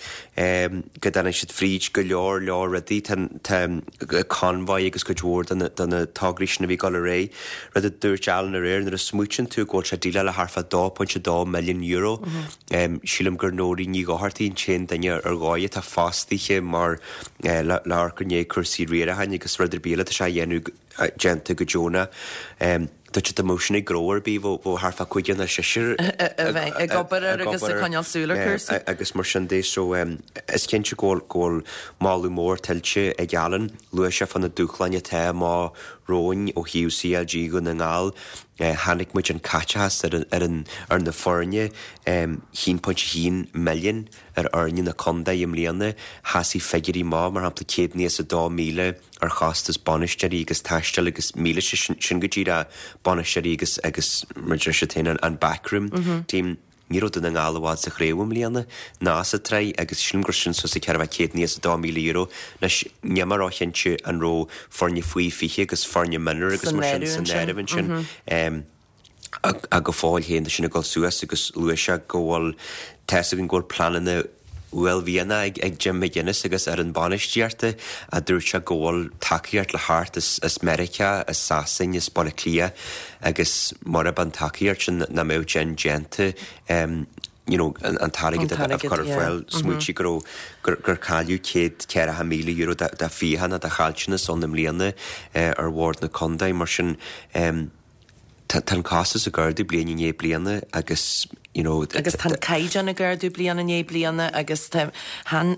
go dtáinig siad fríd go leor leor rudaí, tá Convoy agus cuid mhór de na tograí sin a bhí ag dul ar aghaidh. Rud a dúirt Alan aréir, nuair a smaoitíonn tú go bhfuil sé ag déileáil le thart fá €2.2 milliún, sílim gur Nóirín Ní Dhochartaigh an t-aon duine ar dhóigh atá fostaithe mar le amharc i ndiaidh cúrsaí riaracháin agus rud ar bith eile atá sé a dhéanamh déanta go deonach. Dúirt sé dá mbeadh sin ag gnó ar bith, bheadh thart fá cúigear nó seisear ag obair air agus ag coinneáil súil ar chúrsaí. Agus mar sin de, so is cinnte go bhfuil moladh mór tuillte ag Alan. Luaigh sé fá na dúshláin atá amach romhainn ó thaobh CLG Dhún na nGall. Chonaic muid an caiteachas ar an ar na foirne, 1.1 milliún ar fhoirne na contae i mbliana. Sheasaigh figiúirí maith, mar shampla 192,000 ar chostas bainisteoirí agus taistil agus mílíste, sin go díreach bainisteoirí agus agus mar a deir siad féin an backroom team. Ní raibh Dún na nGall i bhfad sa chraobh i mbliana ná sa tsraith agus sílim gur sin suas le €492,000. Anois níl mé róchinnte an raibh foirne faoi 20 agus foirne mionúir agus mar sin san áireamh ansin. Ach go fóill féin tá sin ag dul suas agus luaigh sé go bhfuil, tá fhios againn go bhfuil pleananna uaillmhianacha ag Jim McGuinness agus fhoireann bainistíochta a dúirt sé go bhfuil tacaíocht le theacht as Meiriceá, as Sasain, as Baile Átha Cliath agus murab an tacaíocht sin nach mbeadh sin déanta you know, an t-airgead a chur ar fáil. Smaoitigh go raibh, gur cailleadh €140,000 de fiacha nó de chaillteanas ann i mbliana ar bhord na contae. Mar sin, tá an costas ag ardú bliain i ndiaidh bliana agus, you know. Agus tá an caighdeán ag ardú bliain i ndiaidh bliana agus tá, chan,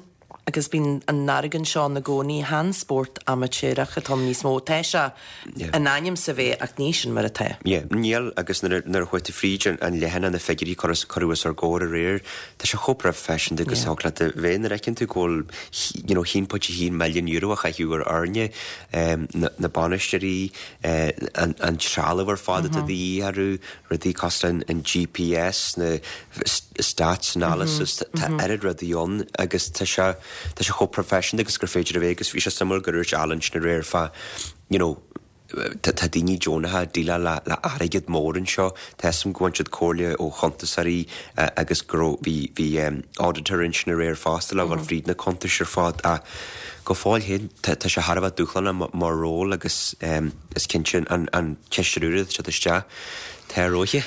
agus bíonn an argóint seo ann i gcónaí, chan spórt amaitéarach atá ann níos mó. Tá sé in ainm is a bheith ach ní sin mar atá. Yeah, níl agus nuair a, nuair a chuaigh tú fríd an leathanach na figiúirí a cuireadh os ár gcomhair aréir, tá sé chomh proifisiúnta agus a thig leat a bheith nuair a fheiceann tú go bhfuil, you know, €1.1 milliún a chaitheamh ar fhoirne, na bainisteoirí, an trealamh ar fad atá de dhíth orthu, rudaí cosúil le an GPS, na stats analysis, tá oiread rudaí ann agus tá sé, tá sé chomh proifisiúnta agus gur féidir a bheith agus bhí sé suimiúil gur dhúirt Alan sin aréir fá, you know, tá daoine deonacha ag déileáil le le airgead mór anseo, tá fhios agam go bhain siad comhairle ó chuntasóirí agus go raibh, bhí, bhí auditor ansin aréir fosta le dhul fríd na cuntais ar fad ach go fóill féin tá sé thar a bheith dúshlánach mar ról agus is cinnte an cisteoir úr atá ag teacht isteach, tá a rogha.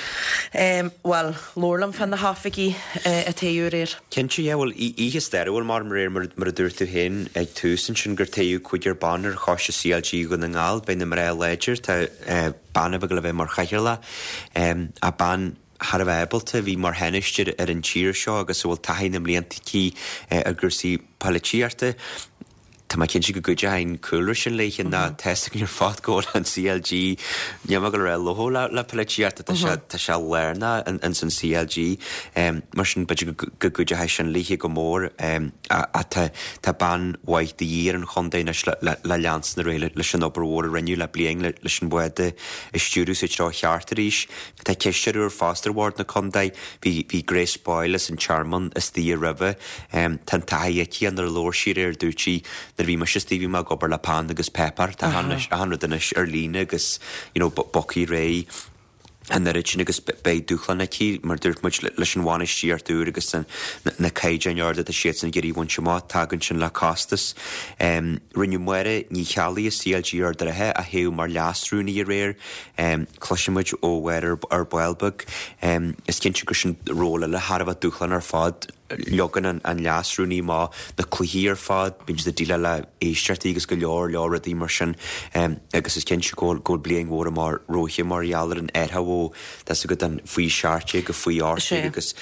Bhuel, labhair liom fá na hoifigigh a toghadh aréir. Cinnte, yeah, bhuel, oíche stairiúil mar aréir mar a dúirt tú féin ag tús ansin gur toghadh cúigear ban ar choiste CLG Dhún na nGall, beidh na mná láidir, tá bean a bheidh le bheith mar chathaoirleach, ach bean thar a bheith ábalta, a bhí mar thánaiste ar an tír seo agus a bhfuil taithí na mblianta aici ar gcúrsaí poilitíochta. Tá mé cinnte go gcuideoidh an cúlra sin léithe ná tá a fhios againn ar fad go bhfuil an CLG, níl mé ag dul a rá lofa le le polaitíocht tá sé tá sé lárnach ins an CLG. Mar sin b'fhéidir go go gcuideoidh sin léithe go mór ach tá tá bean mhaith de dhíth ar an chontae anois le le le leanstan ar aghaidh leis an obair mhór a rinneadh le bliain leis an bhád a stiúradh sa treo cheart arís. Tá cisteoir úr fosta ar bhord na contae. Bhí bhí Grace Boyle as an Tearmann istigh roimhe. Tá an taithí aici nuair a labhair sí aréir dúirt sí nuair a bhí mise istigh bhí mé ag obair le peann agus páipéar. Tá achan rud anois ar líne agus you know bogthaí ar aghaidh an oiread sin agus beidh dúshlán aici mar dúirt muid leis an bhainistíocht úr agus na caighdeáin arda atá siadsan ag iarraidh a bhaint amach. Tagann sin le costas. Rinneadh Máire Ní Cheallaigh as CLG Ard an Rátha a thoghadh mar leas-rúnaí aréir. Cloisfidh muid ó Mháire ar ball beag. Is cinnte gur sin ról eile thar a bheith dúshlánach ar fad. Leagann an leas-rúnaí amach na cluichí ar fad, bíonn siad ag déileáil le éisteachtaí agus go leor leor rudaí mar sin agus is cinnte go bhfuil bliain mhór amach romhaithe mar gheall ar an athrú ó tá a fhios agat an faoi 17 go faoi 18 agus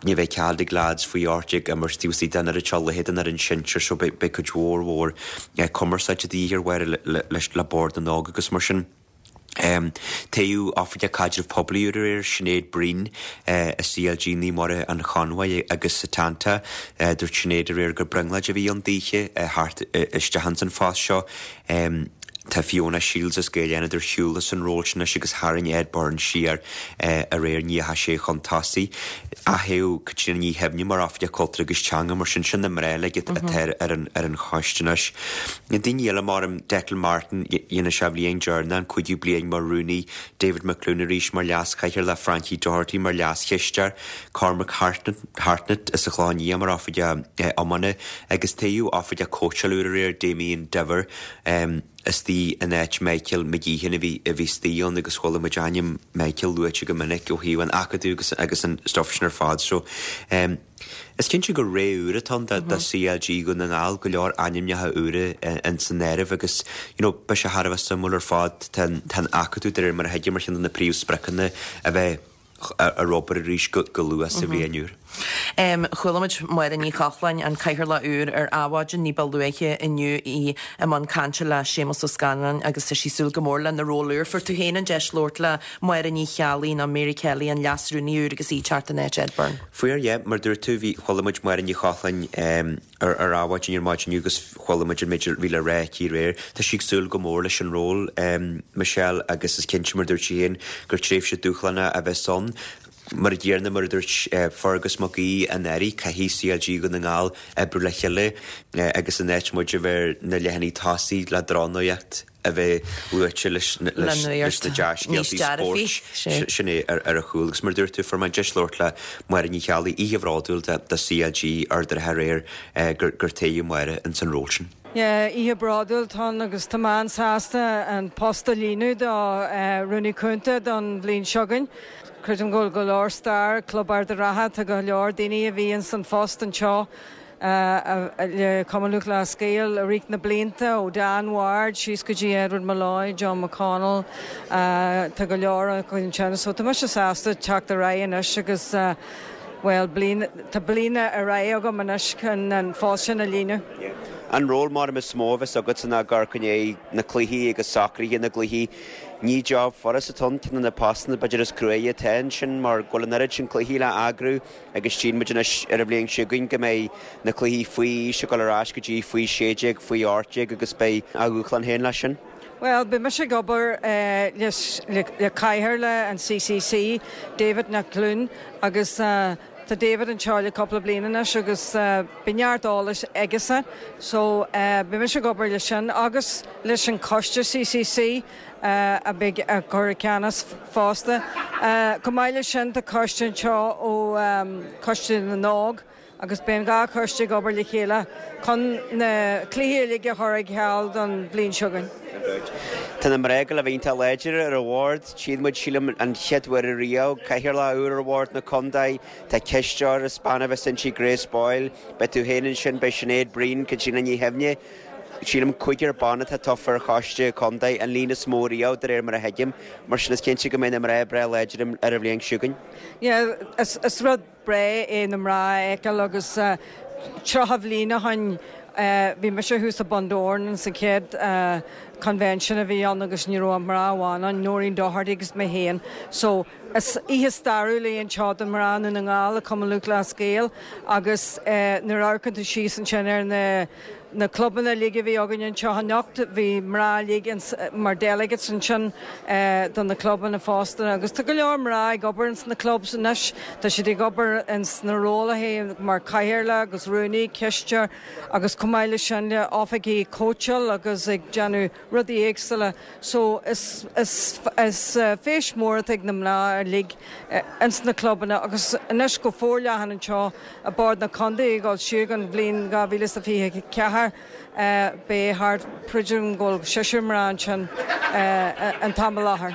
ní bheidh cead ag leaids faoi 18 imirt taobh istigh den oiread seo cluiche den fhoireann sinsir so beidh cuid mhór mhór cumarsáide de dhíth ar Mháire le Bord na nÓg agus mar sin. Toghadh Oifigeach Caidrimh Poiblí úr aréir, Sinéad Breen i CLG Naomh Muire an Chonbhaigh agus Setanta. Dúirt Sinéad aréir gur brionglóid a bhí ann daoithe theacht isteach ins an phost seo. Tá Fiona Shields as Gaeil Fhánada ar shiúl as an ról sin anois agus tharraing Ed Byrne siar aréir, ní dheachaigh sé chun tosaigh. Atoghadh Caitríona Ní Shuibhne mar Oifigeach Cultúir agus Teanga, mar sin, sin na mná uilig atá ar an choiste anois. Na daoine eile mar Declan Martin, dhéanfaidh sé a bhliain deireanach, an cúigiú bliain mar rúnaí, David McLoone arís mar leas-chathaoirleach, Frankie Doherty mar leas-chisteoir, Cormac Hartnett as an Chlochán Liath mar Oifigeach Iomána agus toghadh Oifigeach Cóitseála úr aréir, Damien Diver. istigh in áit Michael McGeehan a bhí a bhí istigh ann agus chuala muid ainm Michael luaite go minic ó thaobh an acadamh agus agus an stuff sin ar fad so em is cinnte gur ré úr atá ann do do CLG Dhún na nGall, go leor ainmneacha úra ins an áireamh agus you know beidh sé thar a bheith suimiúil ar fad tá an tá an acadamh de réir mar a thuigim ar cheann de na príomhspriocanna a bheith ar obair arís go luath sa bhliain úr. Chuala muid Máire Ní Chochláin, an Cathaoirleach úr, ar Adhmhaidin ní ba luaithe inniu, í i mbun cainte le Séamus Ó Scanláin agus tá sí ag súil go mór lena ról úr. Fuair tú féin an deis labhairt le Máire Ní Cheallaigh nó Mary Kelly, an Leas-Rúnaí úr agus í ag teacht in áit Ed Byrne. Fuair, yeah. Mar dúirt tú, bhí, chuala muid Máire Ní Chochláin ar ar Adhmhaidin ar maidin inniu agus chuala muid an méid a bhí le rá aici aréir. Tá sí ag súil go mór leis an ról, Michelle, agus is cinnte, mar a dúirt sí féin, gur tréimhse dúshlánach a bheas ann. Mar a chéanna, mar a dúirt Fergus Mac Aoidh anuraidh, caithfidh CLG Dhún na nGall oibriú le chéile agus in áit muid a bheith ar na leathanaigh tosaigh le drochnuacht a bheith luaite leis na dea-scéaltaí spóirt, sin é ar a chúl. Agus mar a dúirt tú, fuair mé an deis labhairt le Máire Ní Cheallaigh, oíche bhródúil do CLG Ard an Rátha aréir gur toghadh Máire ins an ról sin. Yeah, oíche bhródúil atá ann agus tá mé an-sásta an post a líonadh do Rúnaí Cúnta don bhliain seo chugainn. Creidim go bhfuil go leor stair ag Club Ard an Rátha, tá go leor daoine a bhí ins an phost anseo le Cumann Lúthchleas Gael i rith na blianta, ó Dan Ward síos go dtí Edward Molloy, John McConnell, tá go leor acu ansin. So tá mise sásta teacht ar aghaidh anois agus bhuel, bliain, tá bliain ar aghaidh agam anois chun an phost sin a líonadh. An ról mar is mó a bheas agatsa ná ag amharc i ndiaidh na cluichí agus socruithe na gcluichí. Ní job furast atá ann, ceann de na postanna b'fhéidir is cruaidhe atá ansin mar go bhfuil an oiread sin cluichí le eagrú agus tchíonn muid anois ar an bhliain seo chugainn go mbeidh na cluichí faoi aois ag dul ar ais go dtí faoi 16, faoi 18 agus beidh a dhúshlán féin leis sin. Bhuel, beidh mise ag obair le cathaoirleach an CCC, David McLoone, agus tá David anseo le cúpla bliain anois agus beidh neart eolais aigesan. So, beidh mise ag obair leis sin agus leis an choiste CCC a bheidh ag cur i gceannas fosta. Chomh maith leis sin, tá coiste anseo ó Choiste na nÓg agus beidh an dá choiste ag obair le chéile chun na cluichí uilig a chur ar ceal don bhliain seo chugainn. Tá na mná ag dul a bheith iontach láidir ar an bhord. Tchíonn muid, sílim, an chéad uair ariamh, cathaoirleach úr ar bhord na contae. Tá cisteoir is bean a bheas inti, Grace Boyle. Beidh tú féin ansin, beidh Sinéad Breen, Caitríona Ní Shuibhne. Sílim cúigear ban atá tofa ar choiste contae, an líon is mó riamh, de réir mar a thuigim. Mar sin is cinnte go mbeidh na mná breá láidir ar an bhliain seo chugainn. Yeah, is rud breá é na mná a fheiceáil agus 30 bhliain ó shin. Bhí mise thuas i Bundoran sa chéad convention a bhí ann agus ní raibh ach mná amháin ann, Noreen Doherty agus mé féin. So is oíche stairiúil í anseo do mná Dhún na nGall i Cumann Lúthchleas Gael agus nuair a amharcann tú síos ansin ar na na clubanna uilig a bhí againn anseo anocht, bhí mná uilig mar delegates ansin do na clubanna fosta agus tá go leor mná ag obair ins na clubs anois, tá siad ag obair ins na rólaithe mar cathaoirleach agus rúnaí, cisteoir agus chomh maith leis sin le oifigigh cóitseáil agus ag déanamh rudaí éagsúla so is is is feis mór atá ag na mná uilig ins na clubanna agus anois go forleathan anseo i Bord na Contae ag dul siar don bhliain 2024 beidh thart b'fhéidir go bhfuil seisear mná ansin an t-am i láthair.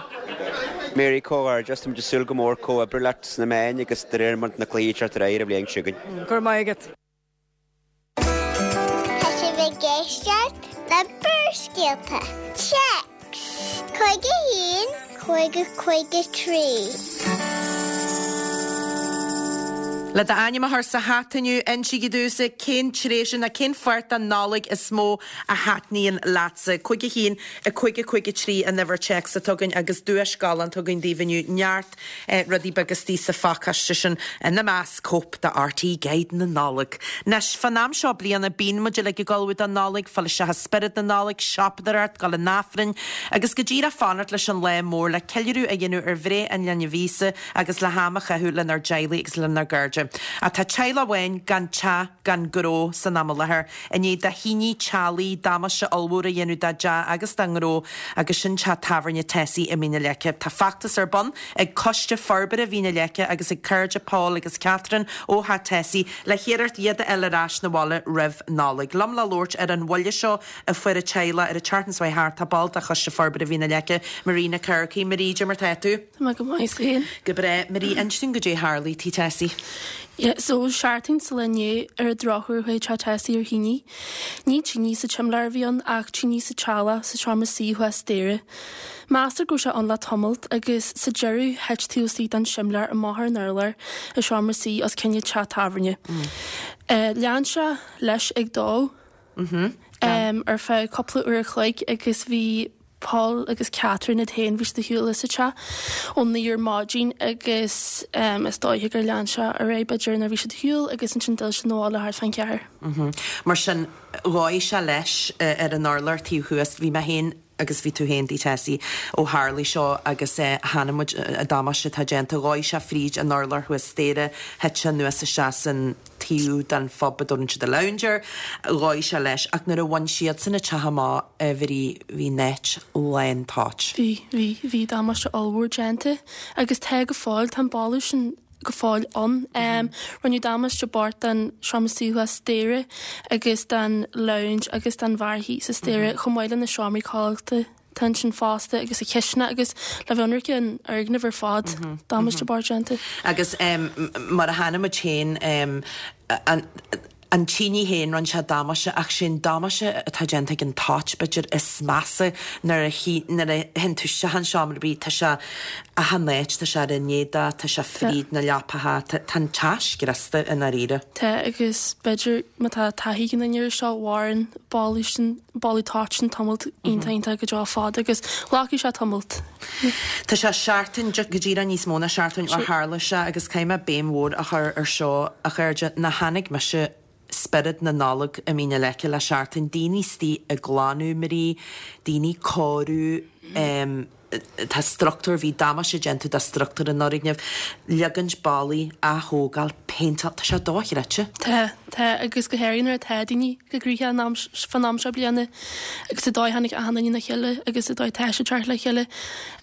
Mary, Comhghairdeas, táimid ag súil go mór comhoibriú leat sna meáin agus de réir mar na cluichí ag teacht ar aghaidh ar an bhliain seo chugainn. Go raibh maith agat. Tá sibh ag éisteacht le Barrscéalta. Téacs 51 50 53. Le d'ainm a chur sa hata inniu, insígí domhsa cén tréimhse nó cén pháirt den Nollaig is mó a thaitníonn leatsa. 51 50 53 an uimhir téacs atá againn agus duais galánta againn daoibh inniu, neart rudaí beaga istigh sa phacáiste sin, ina measc cóip de RTÉ Guide na Nollag. Anois, fán am seo bliana, bíonn muid uilig ag ullmhú don Nollaig, fáil isteach i spiorad na Nollag, siopadóireacht, dul chun Aifrinn, agus go díreach fanacht leis an lá mór le ceiliúradh a dhéanamh ar bhreith an linbh Íosa agus le ham a chaitheamh lenár dteaghlaigh agus lenár gcairde. Ach tá teaghlach amháin gan teach gan gnó san am i láthair. I ndiaidh do thine teallaigh damáiste ollmhór a dhéanamh dá dteach agus dá ngnó agus sin teach tábhairne Tessie i Mín na Leice. Tá feachtas ar bun ag Coiste Forbartha Mhín na Leice agus ag cairde Paul agus Catherine ó theach Tessie le hiarracht iad a fháil ar ais 'na bhaile roimh Nollaig. Liom le labhairt ar an bhuille seo a fuair an teaghlach ar an tseachtain seo thart tá ball de Choiste Forbartha Mhín na Leice, Marie Nic Earcaigh. Marie, cad é mar tá tú? Tá mé go maith, is tú féin? Go breá. Marie, inis dúinn goidé a tharlaigh tigh Tessie. Yeah, so seachtain sa lá inné ar an drochuair chuaigh teach Tessie ar thine. Ní tine sa tsimléar a bhí ann ach tine sa teallach sa seomra suí thuas staighre. Meastar go raibh sé ann le tamalt agus sa deireadh thit taobh istigh den simléar amach ar an urlár i seomra suí os cionn an teach tábhairne. Lean sé leis ag dó ar feadh cúpla uair a chloig agus bhí Paul agus Catherine iad féin, bhí siad ar shiúl as an teach ón 9 ar maidin agus is dóiche gur lean sé ar aghaidh b'fhéidir nuair a bhí siad ar shiúl agus ansin d'fhill siad 'na bhaile thart fán cheathair. Mar sin, dhóigh sé leis ar an urlár taobh thuas. Bhí mé féin agus bhí tú féin tigh Tessie ó tharlaigh seo agus chonaic muid an damáiste atá déanta. Dhóigh sé fríd an urlár thuas staighre, thit sé anuas isteach san taobh den phub a dtabharann siad an lounge air. Dhóigh sé leis ach nuair a bhain siadsan an teach amach a Mharie bhí an áit lán toit. Bhí, bhí, bhí damáiste ollmhór déanta agus tá go fóill, tá an boladh sin go fóill ann. Rinneadh damáiste bocht don seomra suí thuas staighre agus don lounge agus don bheár thíos sa staighre chomh maith le na seomraí codlata. Tá ansin fosta agus an chisteanach agus le bheith ionraic an fhoirgneamh ar fad, damáiste bocht déanta. Agus mar a chonaic muid féin, an tine féin, rinne sé damáiste ach sé an damáiste atá déanta ag an toit, b'fhéidir, is measa nuair a nuair a théann tú isteach in seomra ar bith, tá sé achan áit, tá sé ar an éadach, tá sé fríd na leapacha, tá an teach scriosta i ndáiríre. Tá agus b'fhéidir má tá taithí ag an duine air seo, mhaireann boladh sin. boladh toit sin tamall iontach iontach go deo fada agus glacfaidh sé tamalt. Tá sé seachtain, go díreach níos mó ná seachtain ó tharla sé agus caithfidh mé béim mhór a chur ar seo, a chairde, nach chonaic mise spiorad na Nollag i Mín na Leice le seachtain, daoine istigh ag glanadh, Marie, daoine ag cóiriú, tá struchtúr, bhí damáiste déanta do struchtúr an fhoirgnimh, leagaint ballaí, athógáil, péinteáil, tá sé dochreidte. Tá, tá, agus go háirithe nuair atá daoine go gnoitheach an am, fán am seo bliana agus an dóigh a tháinig achan duine le chéile agus an dóigh atá siad ag teacht le chéile.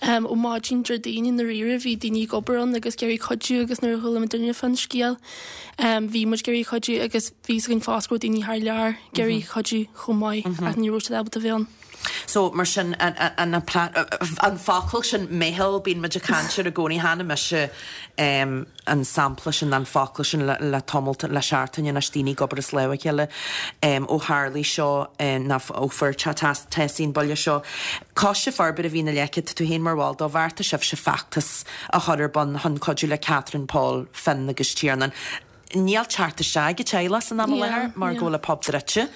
Ó maidin Déardaoin i ndáiríre bhí daoine ag obair ann agus ag iarraidh cuidiú agus nuair a chuala muidinne fán scéal bhí muid ag iarraidh cuidiú agus bhí fhios againn fosta go raibh daoine thar lear ag iarraidh cuidiú chomh maith ach ní raibh siad ábalta bheith ann. So, mar sin, an focal sin, meitheal, bíonn muid ag caint air i gcónaí, chonaic mise an sampla sin, an focal sin le tamalt, le seachtain anois, daoine ag obair as lámh a chéile ó tharlaigh seo, nó ó fuair teach Tessie an buille seo. Coiste Forbartha Mhín na Leice, tá tú féin mar bhall dó, bheartaigh sibhse feachtas a chur ar bun chun cuidiú le Catherine, Paul, Finn agus Tiarnán. Níl teacht isteach ag an teaghlach san am i láthair mar go bhfuil an pub druidte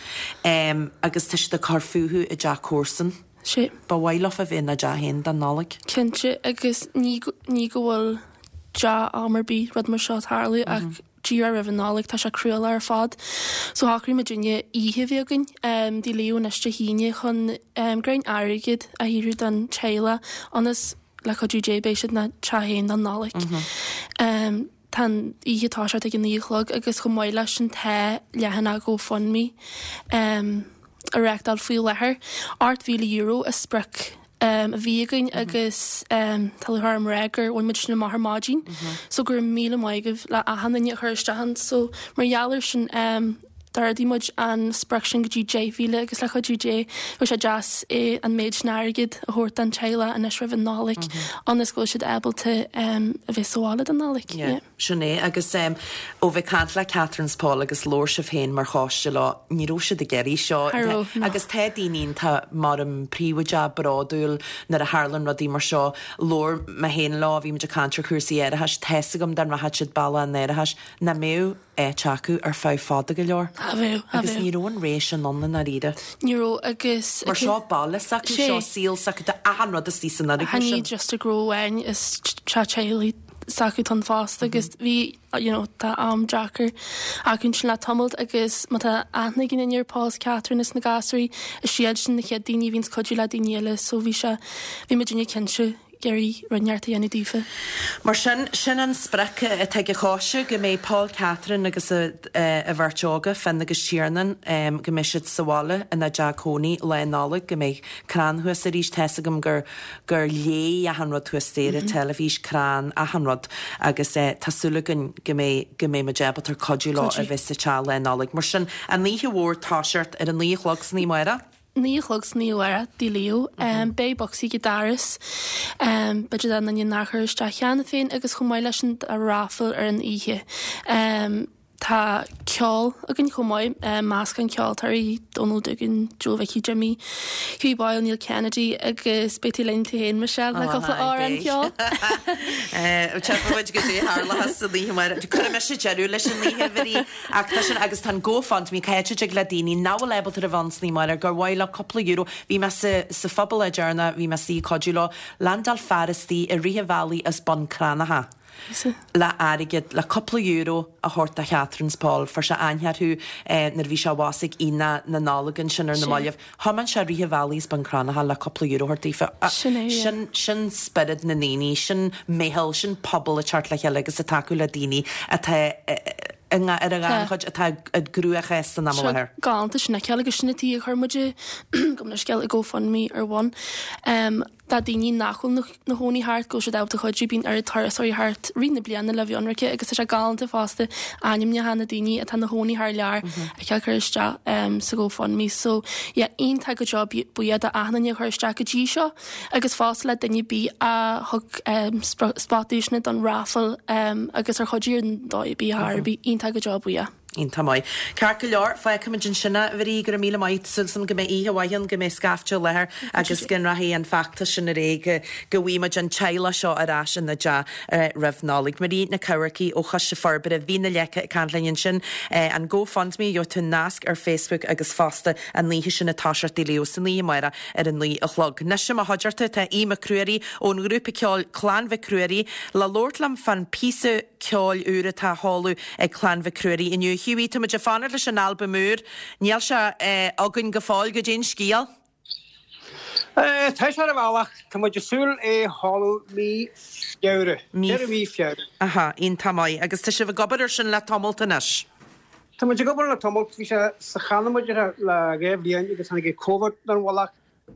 agus tá siad ag cur fúthu i dteach comharsan. Sea. Ba mhaith leofa bheith ina dteach féin don Nollaig. Cinnte, agus ní ní go bhfuil dea-am ar bith rud mar seo tarlú ach díreach roimh an Nollaig tá sé cruálach ar fad. So shocraigh muidinne oíche a bheith againn Tigh Leo anois Dé hAoine chun greim airgid a shaothrú don teaghlach ionas le cuidiú Dé beidh siad ina dteach féin don Nollaig. Tá an oíche ag toiseacht ag a 9 a chlog agus chomh maith leis sin tá leathanach GoFundMe á reachtáil faoi láthair. €8,000 an sprioc a bhí againn agus tá lúcháir orm a rá gur bhain muid sin amach ar maidin. So go raibh míle maith agaibh le achan duine a chuir isteach ann. So mar gheall air sin d'ardaigh muid an sprioc sin go dtí 10,000 agus le cuidiú Dé bheadh sé deas é an méid sin airgid a thabhairt don teaghlach anois roimh an Nollaig ionas go bhfuil siad ábalta a bheith sa bhaile don Nollaig. Yeah, sin é agus ó bheith caint le Catherine 's Paul agus labhair sibh féin mar choiste leo, ní raibh siad ag iarraidh seo. Cha raibh, no. Agus tá daoine iontach mar an príobháideach, bródúil nuair a tharlann rudaí mar seo. Labhair mé féin leo, bhí muid ag caint ar chúrsaí árachais, tá's agam dá rachadh siad bealach an árachais, nach mbeadh áit acu ar feadh fada go leor. Cha bheadh, cha Agus bheadh. ní raibh an ré sin ann i ndáiríre. Ní raibh agus. Mar seo baile s'acu, Sé. seo saol s'acu, tá achan rud istigh san fhoirgneamh Ní sin. just a gnó amháin, is teach teaghlaigh s'acu atá ann fosta agus bhí, you know, tá am deacair acu ansin le tamalt agus má tá aithne ag aon duine ar Paul is Catherine is na gasúirí, is iad sin na chéad daoine a bhíonns cuidiú le daoine eile so bhí sé, bhí muidinne cinnte. iarraidh rud inteacht a dhéanamh daofa. Mar sin, sin an sprioc atá ag an choiste, go mbeidh Paul, Catherine agus a bheirt óga, Finn agus Tiarnán, go mbeidh siad sa bhaile ina dteach cónaí Lá Nollag, go mbeidh crann thuas arís. Tá's agam gur gur léigh achan rud thuas staighre, teilifís, crann, achan rud agus tá súil againn go mbeidh go mbeidh muid ábalta cuidiú leo a bheith sa teach Lá Nollag. Mar sin, an oíche mhór toiseacht ar a naoi a chlog san oíche amárach. 9 a chlog san oíche amárach, Tigh Leo. Beidh bocsaí ag an doras, b'fhéidir do dhuine nár chuir isteach cheana féin agus chomh maith leis sin tá raffle ar an oíche. Tá ceol againn chomh maith, meascán ceoltóirí, Donal Doogan, Joe Mhicí Jimmy, Hughie Boyle, Neil Kennedy agus beidh tú linn tú féin Michelle le cúpla amhrán ceoil. Tchífidh muid goidé a tharlóchas san oíche amárach. Cuirfidh mise deireadh leis an oíche, a Mharie. Ach tá sin, agus tá an GoFundMe, cá háit a dtig le daoine nach bhfuil ábalta a bheith ann san oíche amárach, gur mhaith leo cúpla euro, bhí mé sa, sa phub lá deireanach, bhí mé istigh ag cuidiú leo, landáil fear istigh i rith an bhealaigh as Bun Cranncha le airgead, le cúpla euro a thabhairt do Catherine 's Paul, fuair sé aithne orthu nuair a bhí sé abhus ag Aonach na Nollag ansin ar na mallaibh. Thiomáin sé rith an bhealaigh as Bun Cranncha le cúpla euro a thabhairt daofa. Sin é, yeah. Sin, sin spiorad na ndaoine, sin meitheal, sin pobal ag teacht le chéile agus ag tacú le daoine atá i nga, ar an ghannchuid, atá i gcruachás san am i láthair. Galánta sin a fheiceáil agus sin an tuige a chuir muid, gabh mo leithscéal, an GoFundMe ar bun. Do daoine nach bhfuil na chónaí thart, go bhfuil siad ábalta cuidiú, bíonn oiread turasóirí thart rith na bliana le bheith ionraice agus tá sé galánta fosta ainmneacha na daoine atá na chónaí thar lear a fheiceáil curtha isteach sa GoFundMe. So yeah, iontach go deo buíoch do achan duine a chuir isteach go dtí seo agus fosta le duine ar bith a thug spot duaiseanna don raffle agus ar chuidigh ar ndóigh ar bith ar bith, iontach go deo buíoch. Iontach maith. Ceart go leor, fágfaimid ansin é, a Mharie, go raibh míle maith, súil agam go mbeidh oíche mhaith ann, go mbeidh scaifte i láthair agus go rachaidh an feachtas sin ar aghaidh, go bhfaighidh muid an teaghlach seo ar ais ina dteach roimh Nollaig. Marie Nic Eamharcaigh ó Choiste Forbartha Mhín na Leice ag caint linn ansin. An GoFundMe, gheobhaidh tú nasc ar Facebook agus fosta an oíche sin ag toiseacht i Tigh Leo san oíche amárach ar a 9 a chlog. Anois i mo chuideachta tá Aodh Mac Ruairí ón ngrúpa ceoil Clann Mhic Ruairí le labhairt liom fán píosa ceoil úr atá á sheoladh ag Clann Mhic Ruairí inniu. Hughie, tá muid ag fanacht leis an albam úr. Níl sé againn go fóill. Goidé an scéal? Tá sé ar an bhealach. Tá muid ag súil é a sheoladh mí Feabhra. Deireadh mí Feabhra. Aha, iontach maith. Agus tá sibh ag obair ar sin le tamalt anois? Tá muid ag obair le tamalt. Bhí sé sa channa muid le 2 bhliain agus tháinig Covid ar an mhullach.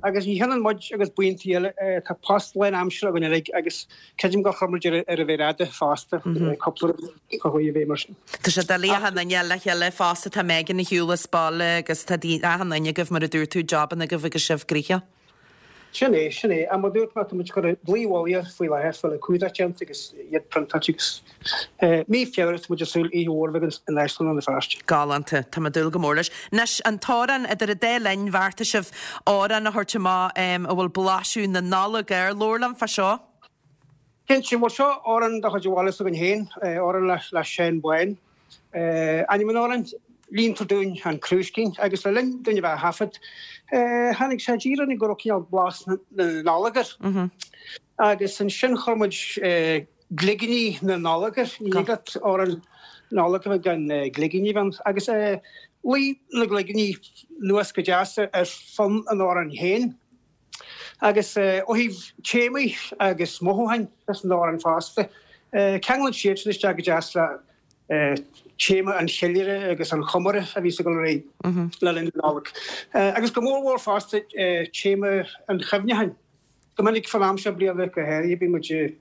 Agus ní hionann muid agus buíontaí eile, tá post lán-aimseartha againn uilig agus creidim gur chuir muid ar an mhéar fhada fosta, cúpla rud a chuaigh i bhfeidhm mar sin. Tá sé doiligh achan duine le chéile fosta, tá Megan ar shiúl as baile agus tá achan duine agaibh mar a dúirt tú, jabanna agaibh agus sibh gnoitheach. Sin é, sin é. Ach mar a dúirt mé, tá muid ag cur dlaoi mhullaigh air faoi láthair, fáil an cumhdach déanta agus iad priontáilte agus. Mí Feabhra, tá muid ag súil oíche mhór a bheith againn in Áislann Rann na Feirste. Galánta. Tá mé ag dúil go mór leis. Anois, an t-amhrán idir an dá linn, bheartaigh sibh amhrán a thabhairt amach a bhfuil blaiseadh na Nollag air. Labhair liom fá seo. Cinnte, bhuel seo amhrán de chuid an bhaile s'againn féin, amhrán le Seán Bán. Ainm an amhráin, Líontar Dúinn an Crúiscín agus le linn dúinn a bheith á thaifead, tháinig sé i dtír orainn go raibh cineál blas na Nollag air. Agus ansin chuir muid gligíní na Nollag air, ní thig leat amhrán Nollag a bheith gan gligíní a bheith ann. Agus luigh na gligíní anuas go deas ar fonn an amhráin féin. Agus ó thaobh téamaí agus mothúcháin san amhrán fosta, ceanglann siad sin isteach go deas le téama an cheiliúradh agus an chomóradh a bhíos ag dul ar aghaidh le linn na Nollag. Agus go mór mhór fosta téama an chuimhneacháin. Go minic fán am seo bliana go háirithe bíonn muid ag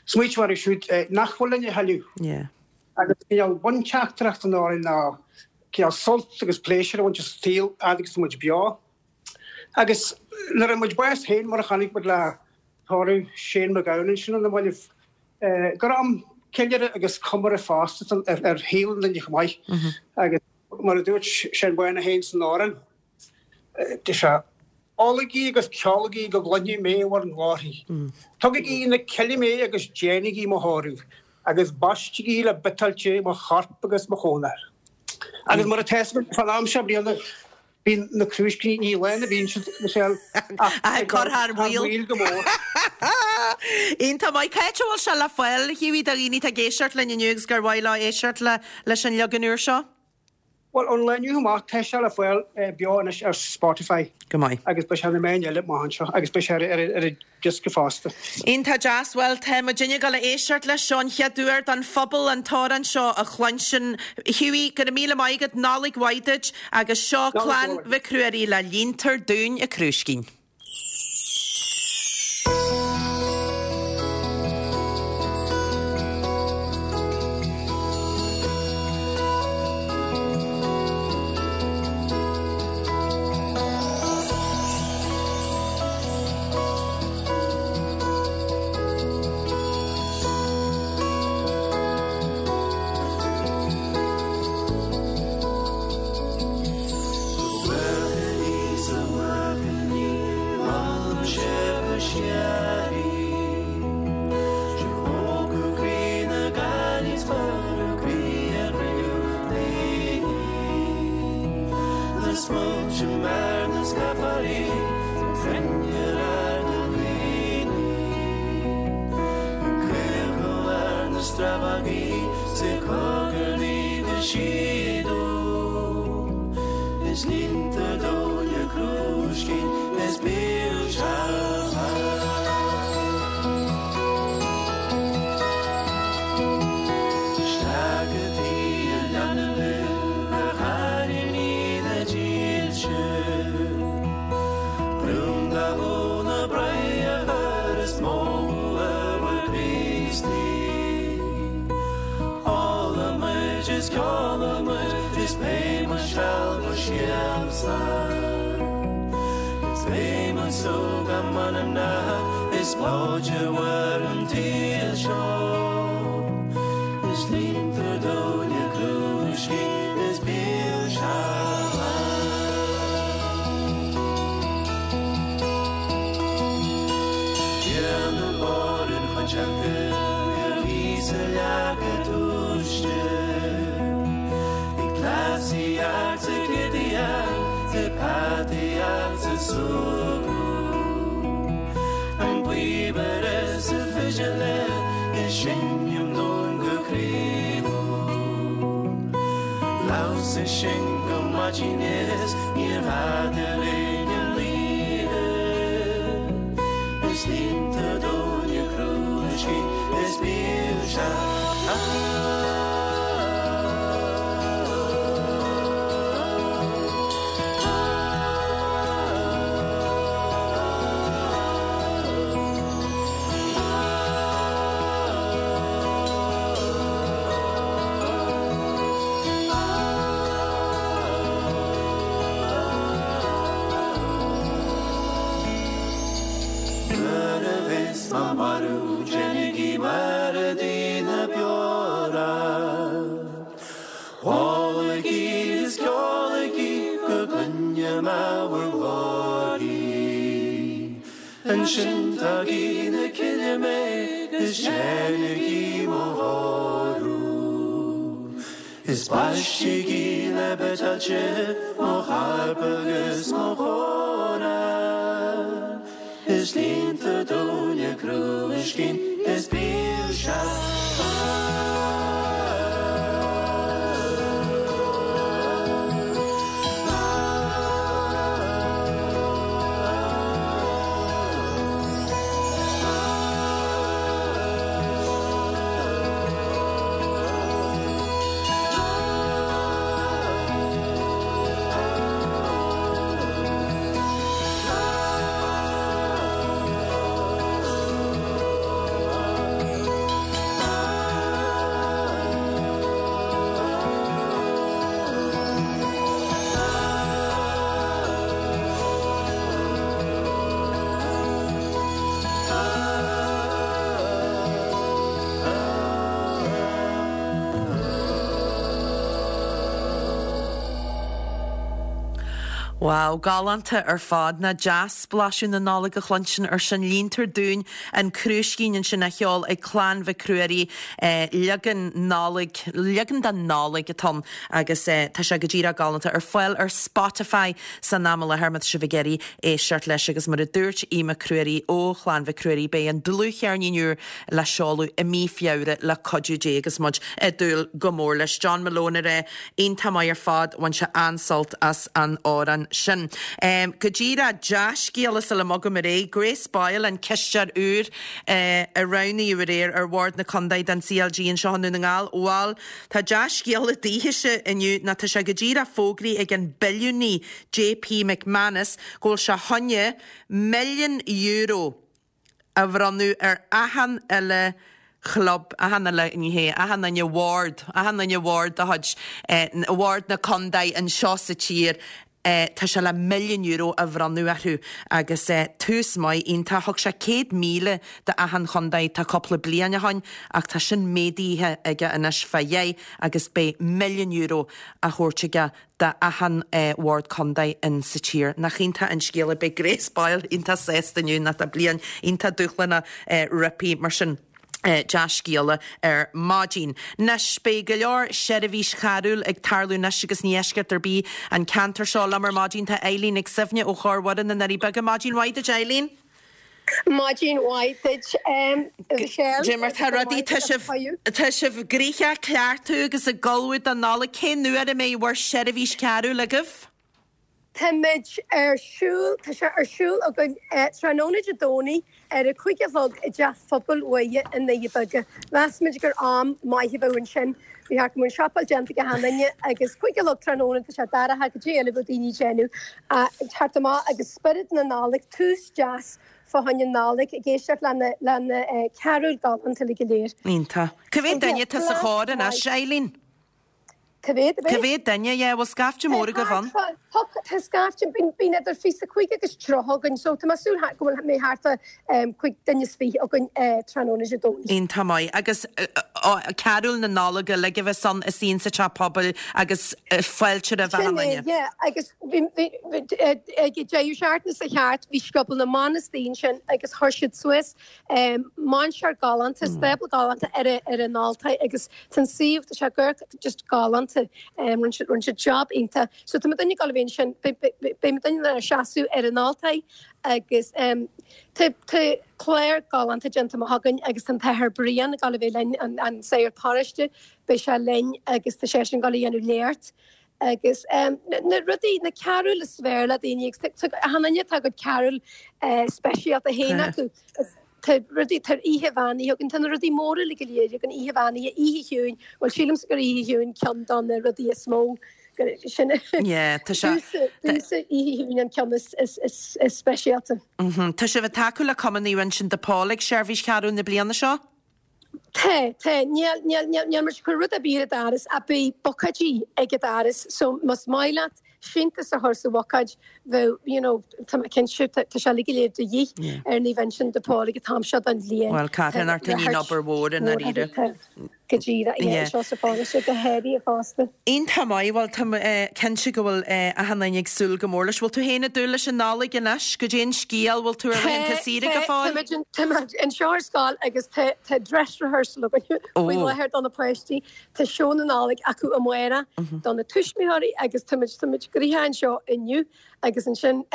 smaoitiú orthu siúd nach bhfuil linn a thuilleadh. Agus cineál bunteachtaireacht an amhráin ná cineál sult agus pléisiúr a bhaint as an saol fhad agus tá muid beo. Agus nuair a fuair muid bás féin, mar a chonaic muid le tórramh Shane MacGowan ansin ar na mallaibh, gur am ceiliúradh agus comóradh fosta ar shaol an duine chomh maith. Agus mar a dúirt Seán Bán é féin san amhrán, deir sé, Ólaigí agus ceolaigí go gcluinfidh mé bhur nglórthaí. Tugaigí na cille mé agus déanaigí mo thórramh, agus baistigí le biotáilte mo chorp agus mo chónair. Agus mar atá fhios againn, fán am seo bliana, Bíonn na crúiscíní, ní lán a bhíonn siad, Michelle, ach ag cur thar maoil go mór. Iontach maith. Cá háit a bhfuil sé le fáil, a Hughie, do dhaoine atá ag éisteacht linn inniu agus gur mhaith leo éisteacht leis an leagan úr seo? Bhuel, ón lá inniu amach, tá sé le fáil beo anois ar Spotify. Go maith. Agus beidh sé ar na meáin eile amach anseo agus beidh sé ar an diosca fosta. Iontach deas. Bhuel, tá muidinne ag dul a éisteacht leis seo an chéad uair don phobal an t-amhrán seo a chluinstin. Hughie, go raibh míle maith agat, Nollaig mhaith duit agus seo Clann Mhic Ruairí le Líontar Dúinn a Crúiscín. Is baistigí le beitáilte mo chairp agus mo chóra, Is líontar dúinn a crúiscín is bíodh sé Wow, galánta ar fad. Nach deas blaiseadh na Nollag a chluinstin ar sin. Líontar Dúinn an Crúiscín ansin á cheol ag Clann Mhic Ruairí. Leagan Nollag, leagan den Nollaig atá ann agus tá sé go díreach galánta. Ar fáil ar Spotify san am i láthair má tá sibh ag iarraidh éisteacht leis agus mar a dúirt Aodh Mac Ruairí ó Chlann Mhic Ruairí beidh an dlúthcheirnín úr le seoladh i mí Feabhra le cuidiú Dé agus muid ag dúil go mór leis. John Malone a rá, iontach maith ar fad, bhain sé an-sult as an amhrán sin. Go díreach, dea-scéala sula mbogaim ar aghaidh, Grace Boyle, an cisteoir úr a roghnaíodh aréir ar Bhord na Contae don CLG anseo i nDún na nGall, bhal, tá dea-scéala daoithese inniu ná tá sé go díreach fógraithe ag an billiúnaí JP McManus go bhfuil sé choinne €1 milliún a bhronnadh ar achan uile chlub, achan uile, ní hea, achan uile bhord, achan uile bhord de chuid bhord na contae anseo sa tír, tá sé le €1 milliún a bhronnadh orthu agus tús maith iontach. Thug sé 100,000 do achan chontae tá cúpla bliain ó shoin ach tá sin méadaithe aige anois fá dheich agus beidh €1 milliún á thabhairt aige d'achan bhord contae in sa tír. Nach iontach an scéal é. Beidh Grace Boyle iontach sásta inniu nó tá bliain iontach dúshlánach roimpi mar sin. Dea-scéala ar maidin. Anois, beidh go leor seirbhís charúil ag tarlú anois agus ní eisceacht ar bith an ceantar seo. Liom ar maidin tá Eileen Nic Suibhne ó Chór Mhuire na nDoirí Beaga. Maidin mhaith duit Eileen. Maidin mhaith duit, Michelle. Dé mar tá rudaí, tá sibh, tá sibh gnoitheach ag cleachtadh agus ag ullmhú don Nollaig. Cén uair a mbeidh bhur seirbhís cearúil agaibh? Táimid ar siúl, tá sé ar siúl againn tráthnóna Dé Domhnaigh ar a 5 a chlog i dTeach Phobail Mhuire i nDoirí Beaga. Mheas muid gur am maith a bheadh ansin. Bhí thart go mbeadh an siopail déanta ag achan duine agus 5 a chlog tráthnóna tá sé dorcha goidé eile a bheadh daoine ag déanamh ach teacht amach agus spiorad na Nollag, tús deas fá choinne Nollag ag éisteacht le na le na carúil galánta uilig go léir. Iontach. Cá mhéad duine atá sa chór anois, Eileen? Cá mhéad a bheidh? Cá mhéad duine, yeah, bhfuil scaifte mór agaibh ann? Tá, tá scaifte, bíonn idir 25 agus 30 againn, so tá mé ag súil go bhfuil mé thart fá 25 duine againn tráthnóna Dé Domhnaigh. Iontach maith. Agus carúil na Nollag uilig a bheas ann istigh insa teach pobail agus fáilte roimh achan Sin é, duine. yeah, agus bhí, bhí, ag an deireadh seachtaine seo thart bhí scioból na mban istigh ansin agus chuir siad suas Mainséar galánta, stábla galánta ar ar an altóir agus tá an suíomh, tá sé go just galánta. Rinne siad rinne siad job iontach. So tá muidinne ag dul a bheith ansin, beidh muidinne ina seasamh ar an altóir agus tá tá clár galánta déanta amach againn agus tá an tAthair Brian ag dul a bheith linn, an an sagart paróiste, beidh sé linn agus tá seisean ag dul a dhéanamh léacht. Agus na rudaí, na carúil is fearr le daoine agus achan duine tá a gcuid carúil speisialta féin acu. Tá rudaí, tá oíche bheannaithe againn, tá na rudaí móra uilig go léir againn, oíche bheannaithe, oíche chiúin, bhuel sílimse gur oíche chiúin ceann de na rudaí is mó, sin Yeah, tá sé. Domsa oíche chiúin an ceann is speisialta. Tá sibh ag tacú le Cumann Naomh Uinseann de Pól ag seirbhís charúil na bliana seo? Tá, tá. Níl, níl, níl, níl muid ag cur rud ar bith ar an doras ach beidh bucáidí ag an doras so más maith leat síntiús a chur sa bhucáid bheadh, you know, tá mé cinnte, tá, tá sé uilig go léir de dhíth ar Naomh Uinseann de Pól ag an t-am seo den bhliain. Bhuel, Tá carthanacht in obair obair mhór i ndáiríre. Tá. Go díreach, yeah, anseo sa pharóiste, go háirithe fosta. Iontach maith, bhuel tá mé cinnte go bhfuil achan duine ag súil go mór leis. Bhfuil tú féin ag dúil leis an Nollaig anois? Goidé an scéal, bhfuil tú ar laethanta saoire go fóill? Tá muid anseo ar scoil agus tá dress rehearsal againn faoi láthair do na páistí. Tá seó na Nollag acu amárach do na tuismitheoirí agus tá muid tá muid gnoitheach anseo inniu agus ansin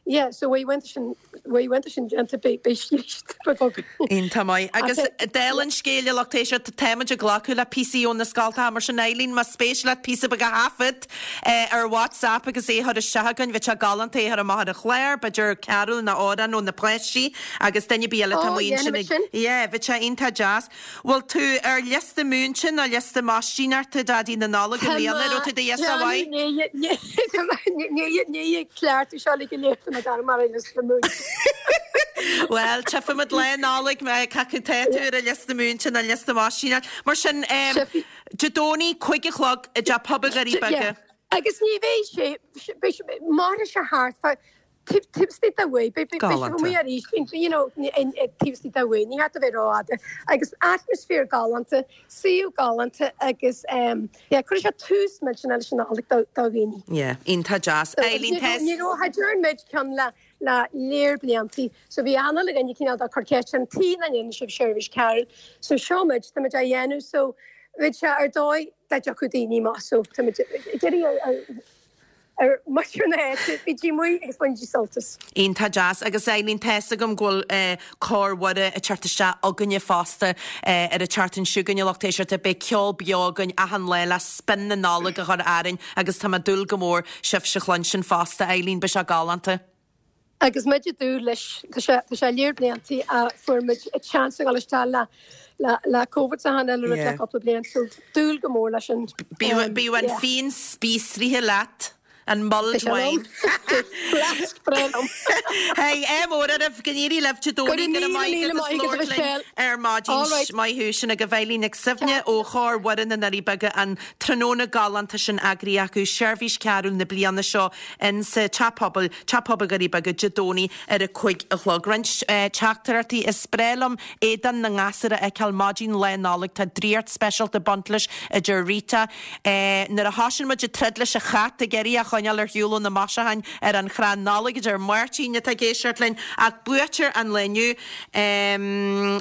Yeah, so bhí uaireanta sin, bhí uaireanta sin déanta, beidh, beidh scríste beag againn. Iontach maith. Agus dála an scéil, a lucht éisteachta, táimid ag glacadh le píosaí ó na scoltacha, mar sin Eileen, más spéis leat píosa beag a thaifead ar WhatsApp agus é a chur isteach againn, bheadh sé galánta é a chur amach ar an chlár, b'fhéidir carúl nó amhrán ó na páistí agus duine ar bith eile atá Ó, amuigh ansin dhéanfaimid ag, sin. yeah, bheadh sé iontach deas. Bhfuil tú ar liosta múinte nó liosta maistíneachta Daidí na Nollag i mbliana? Raibh tú do ghiosa mhaith? Ní cleachtadh seo le go léir tá mé dar mar ar liosta múinte. Bhuel, tchífimid Lá Nollag cé acu tá tú ar an liosta múinte nó liosta maistíneachta. Mar sin, Dé Domhnaigh, 5 a chlog i dTeach Pobail Dhoirí Beaga. Agus ní bheidh sé, mairfidh sé thart fá Taobh istigh de uair, beidh sibh amuigh arís, you know, taobh istigh de uair, ní hea a bheith rófhada. Agus atmaisféar galánta, suíomh galánta agus yeah, cuirfidh sé tús millteanach leis an Nollaig do dhaoine. Yeah, iontach deas. Eileen, tá. Ní raibh, cha dtearn muid ceann le le léar bliantaí, so bhí achan uile dhuine cineál de ag cur ceist orainn, tuige nach ndéanann sibh seirbhís carúil? So seo muid, tá muid á dhéanamh, so bheadh sé ar dóigh dá dtiocfadh daoine amach, so tá muid ag iarraidh ar ar muintir na háite, bígí amuigh agus bainigí sult as. Iontach deas. Agus Eileen, tá's agam go bhfuil Cór Mhuire ag teacht isteach againne fosta ar an tseachtain seo chugainn, a lucht éisteachta. Beidh ceol beo againn achan lá le spin na Nollag a chur orainn agus tá mé ag dúil go mór sibhse a chluinstin fosta, Eileen, beidh sé galánta. Agus muid ag dúil leis, tá sé, tá sé léar bliantaí a fuair muid chance a dhul isteach le, le, le Covid is achan uile rud le cúpla bliain, so dúil go mór leis an, Bíodh, bíodh an yeah. fíon spíosraithe leat, an mulled Tá sé wine. liom. Flask breá liom. Hey, ádh mór oraibh, go n-éirí libh Dé Go Domhnaigh, raibh go raibh míle maith míle agat as maith agat labhairt linn Michelle. ar maidin. All right. Maith thú, sin agaibh Eileen Nic Suibhne ó Chór Mhuire na nDoirí Beaga, an tráthnóna galánta sin eagraithe acu, seirbhís cearúil na bliana seo in sa Teach Pobail, Teach Pobail Dhoirí Beaga, Dé Domhnaigh ar a 5 a chlog. Roinnt teachtaireachtaí Is breá liom éadan na ngasúr a fheiceáil maidin Lá Nollag. Tá draíocht speisialta ag baint leis, a deir Rita. Nuair a thosaíonn muid ag troid leis an chat ag iarraidh é a choinneáil ar shiúl ó na maisiúcháin ar an chrann Nollag, a deir Máirtín atá ag éisteacht linn. Ach buaiteoir an lae inniu.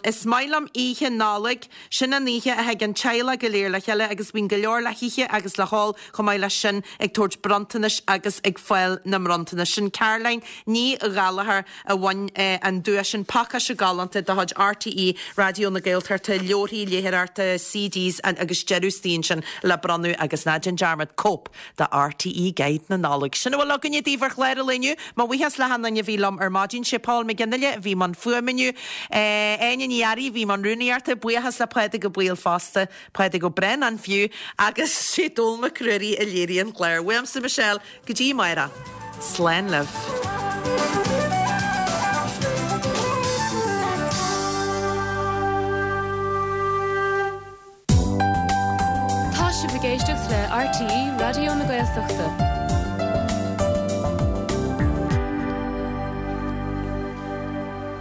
Is maith liom Oíche Nollag. Sin an oíche a thig an teaghlach go léir le chéile agus bíonn go leor le hithe agus le hól chomh maith leis sin ag tabhairt bronntanais agus ag fáil na mbronntanas. Sin Caroline Ní Ghallchóir a bhain an duais sin, pacáiste galánta de chuid RTÉ Raidió na Gaeltachta, leabharthaí léitheoireachta, CDs agus deireadh istigh ansin le bronnadh agus ná déan dearmad cóip de RTÉ Guide na Nollag. Sin a bhfuil againne daoibh ar chlár an lae inniu. Mo bhuíochas le hachan duine a bhí liom ar maidin. Sé Paul McGinley a bhí i mbun fuaime inniu. Áine Ní Fhearraigh a bhí i mbun rúnaíochta. Buíochas le Pádraig Ó Baoill fosta, Pádraig Ó Braonáin fiú, agus sé Dónall Mac Ruairí a léirigh an clár. Uaimse Michelle, go dtí amárach. Slán libh. Tá sibh ag éisteacht le RTÉ Raidió na Gaeltachta.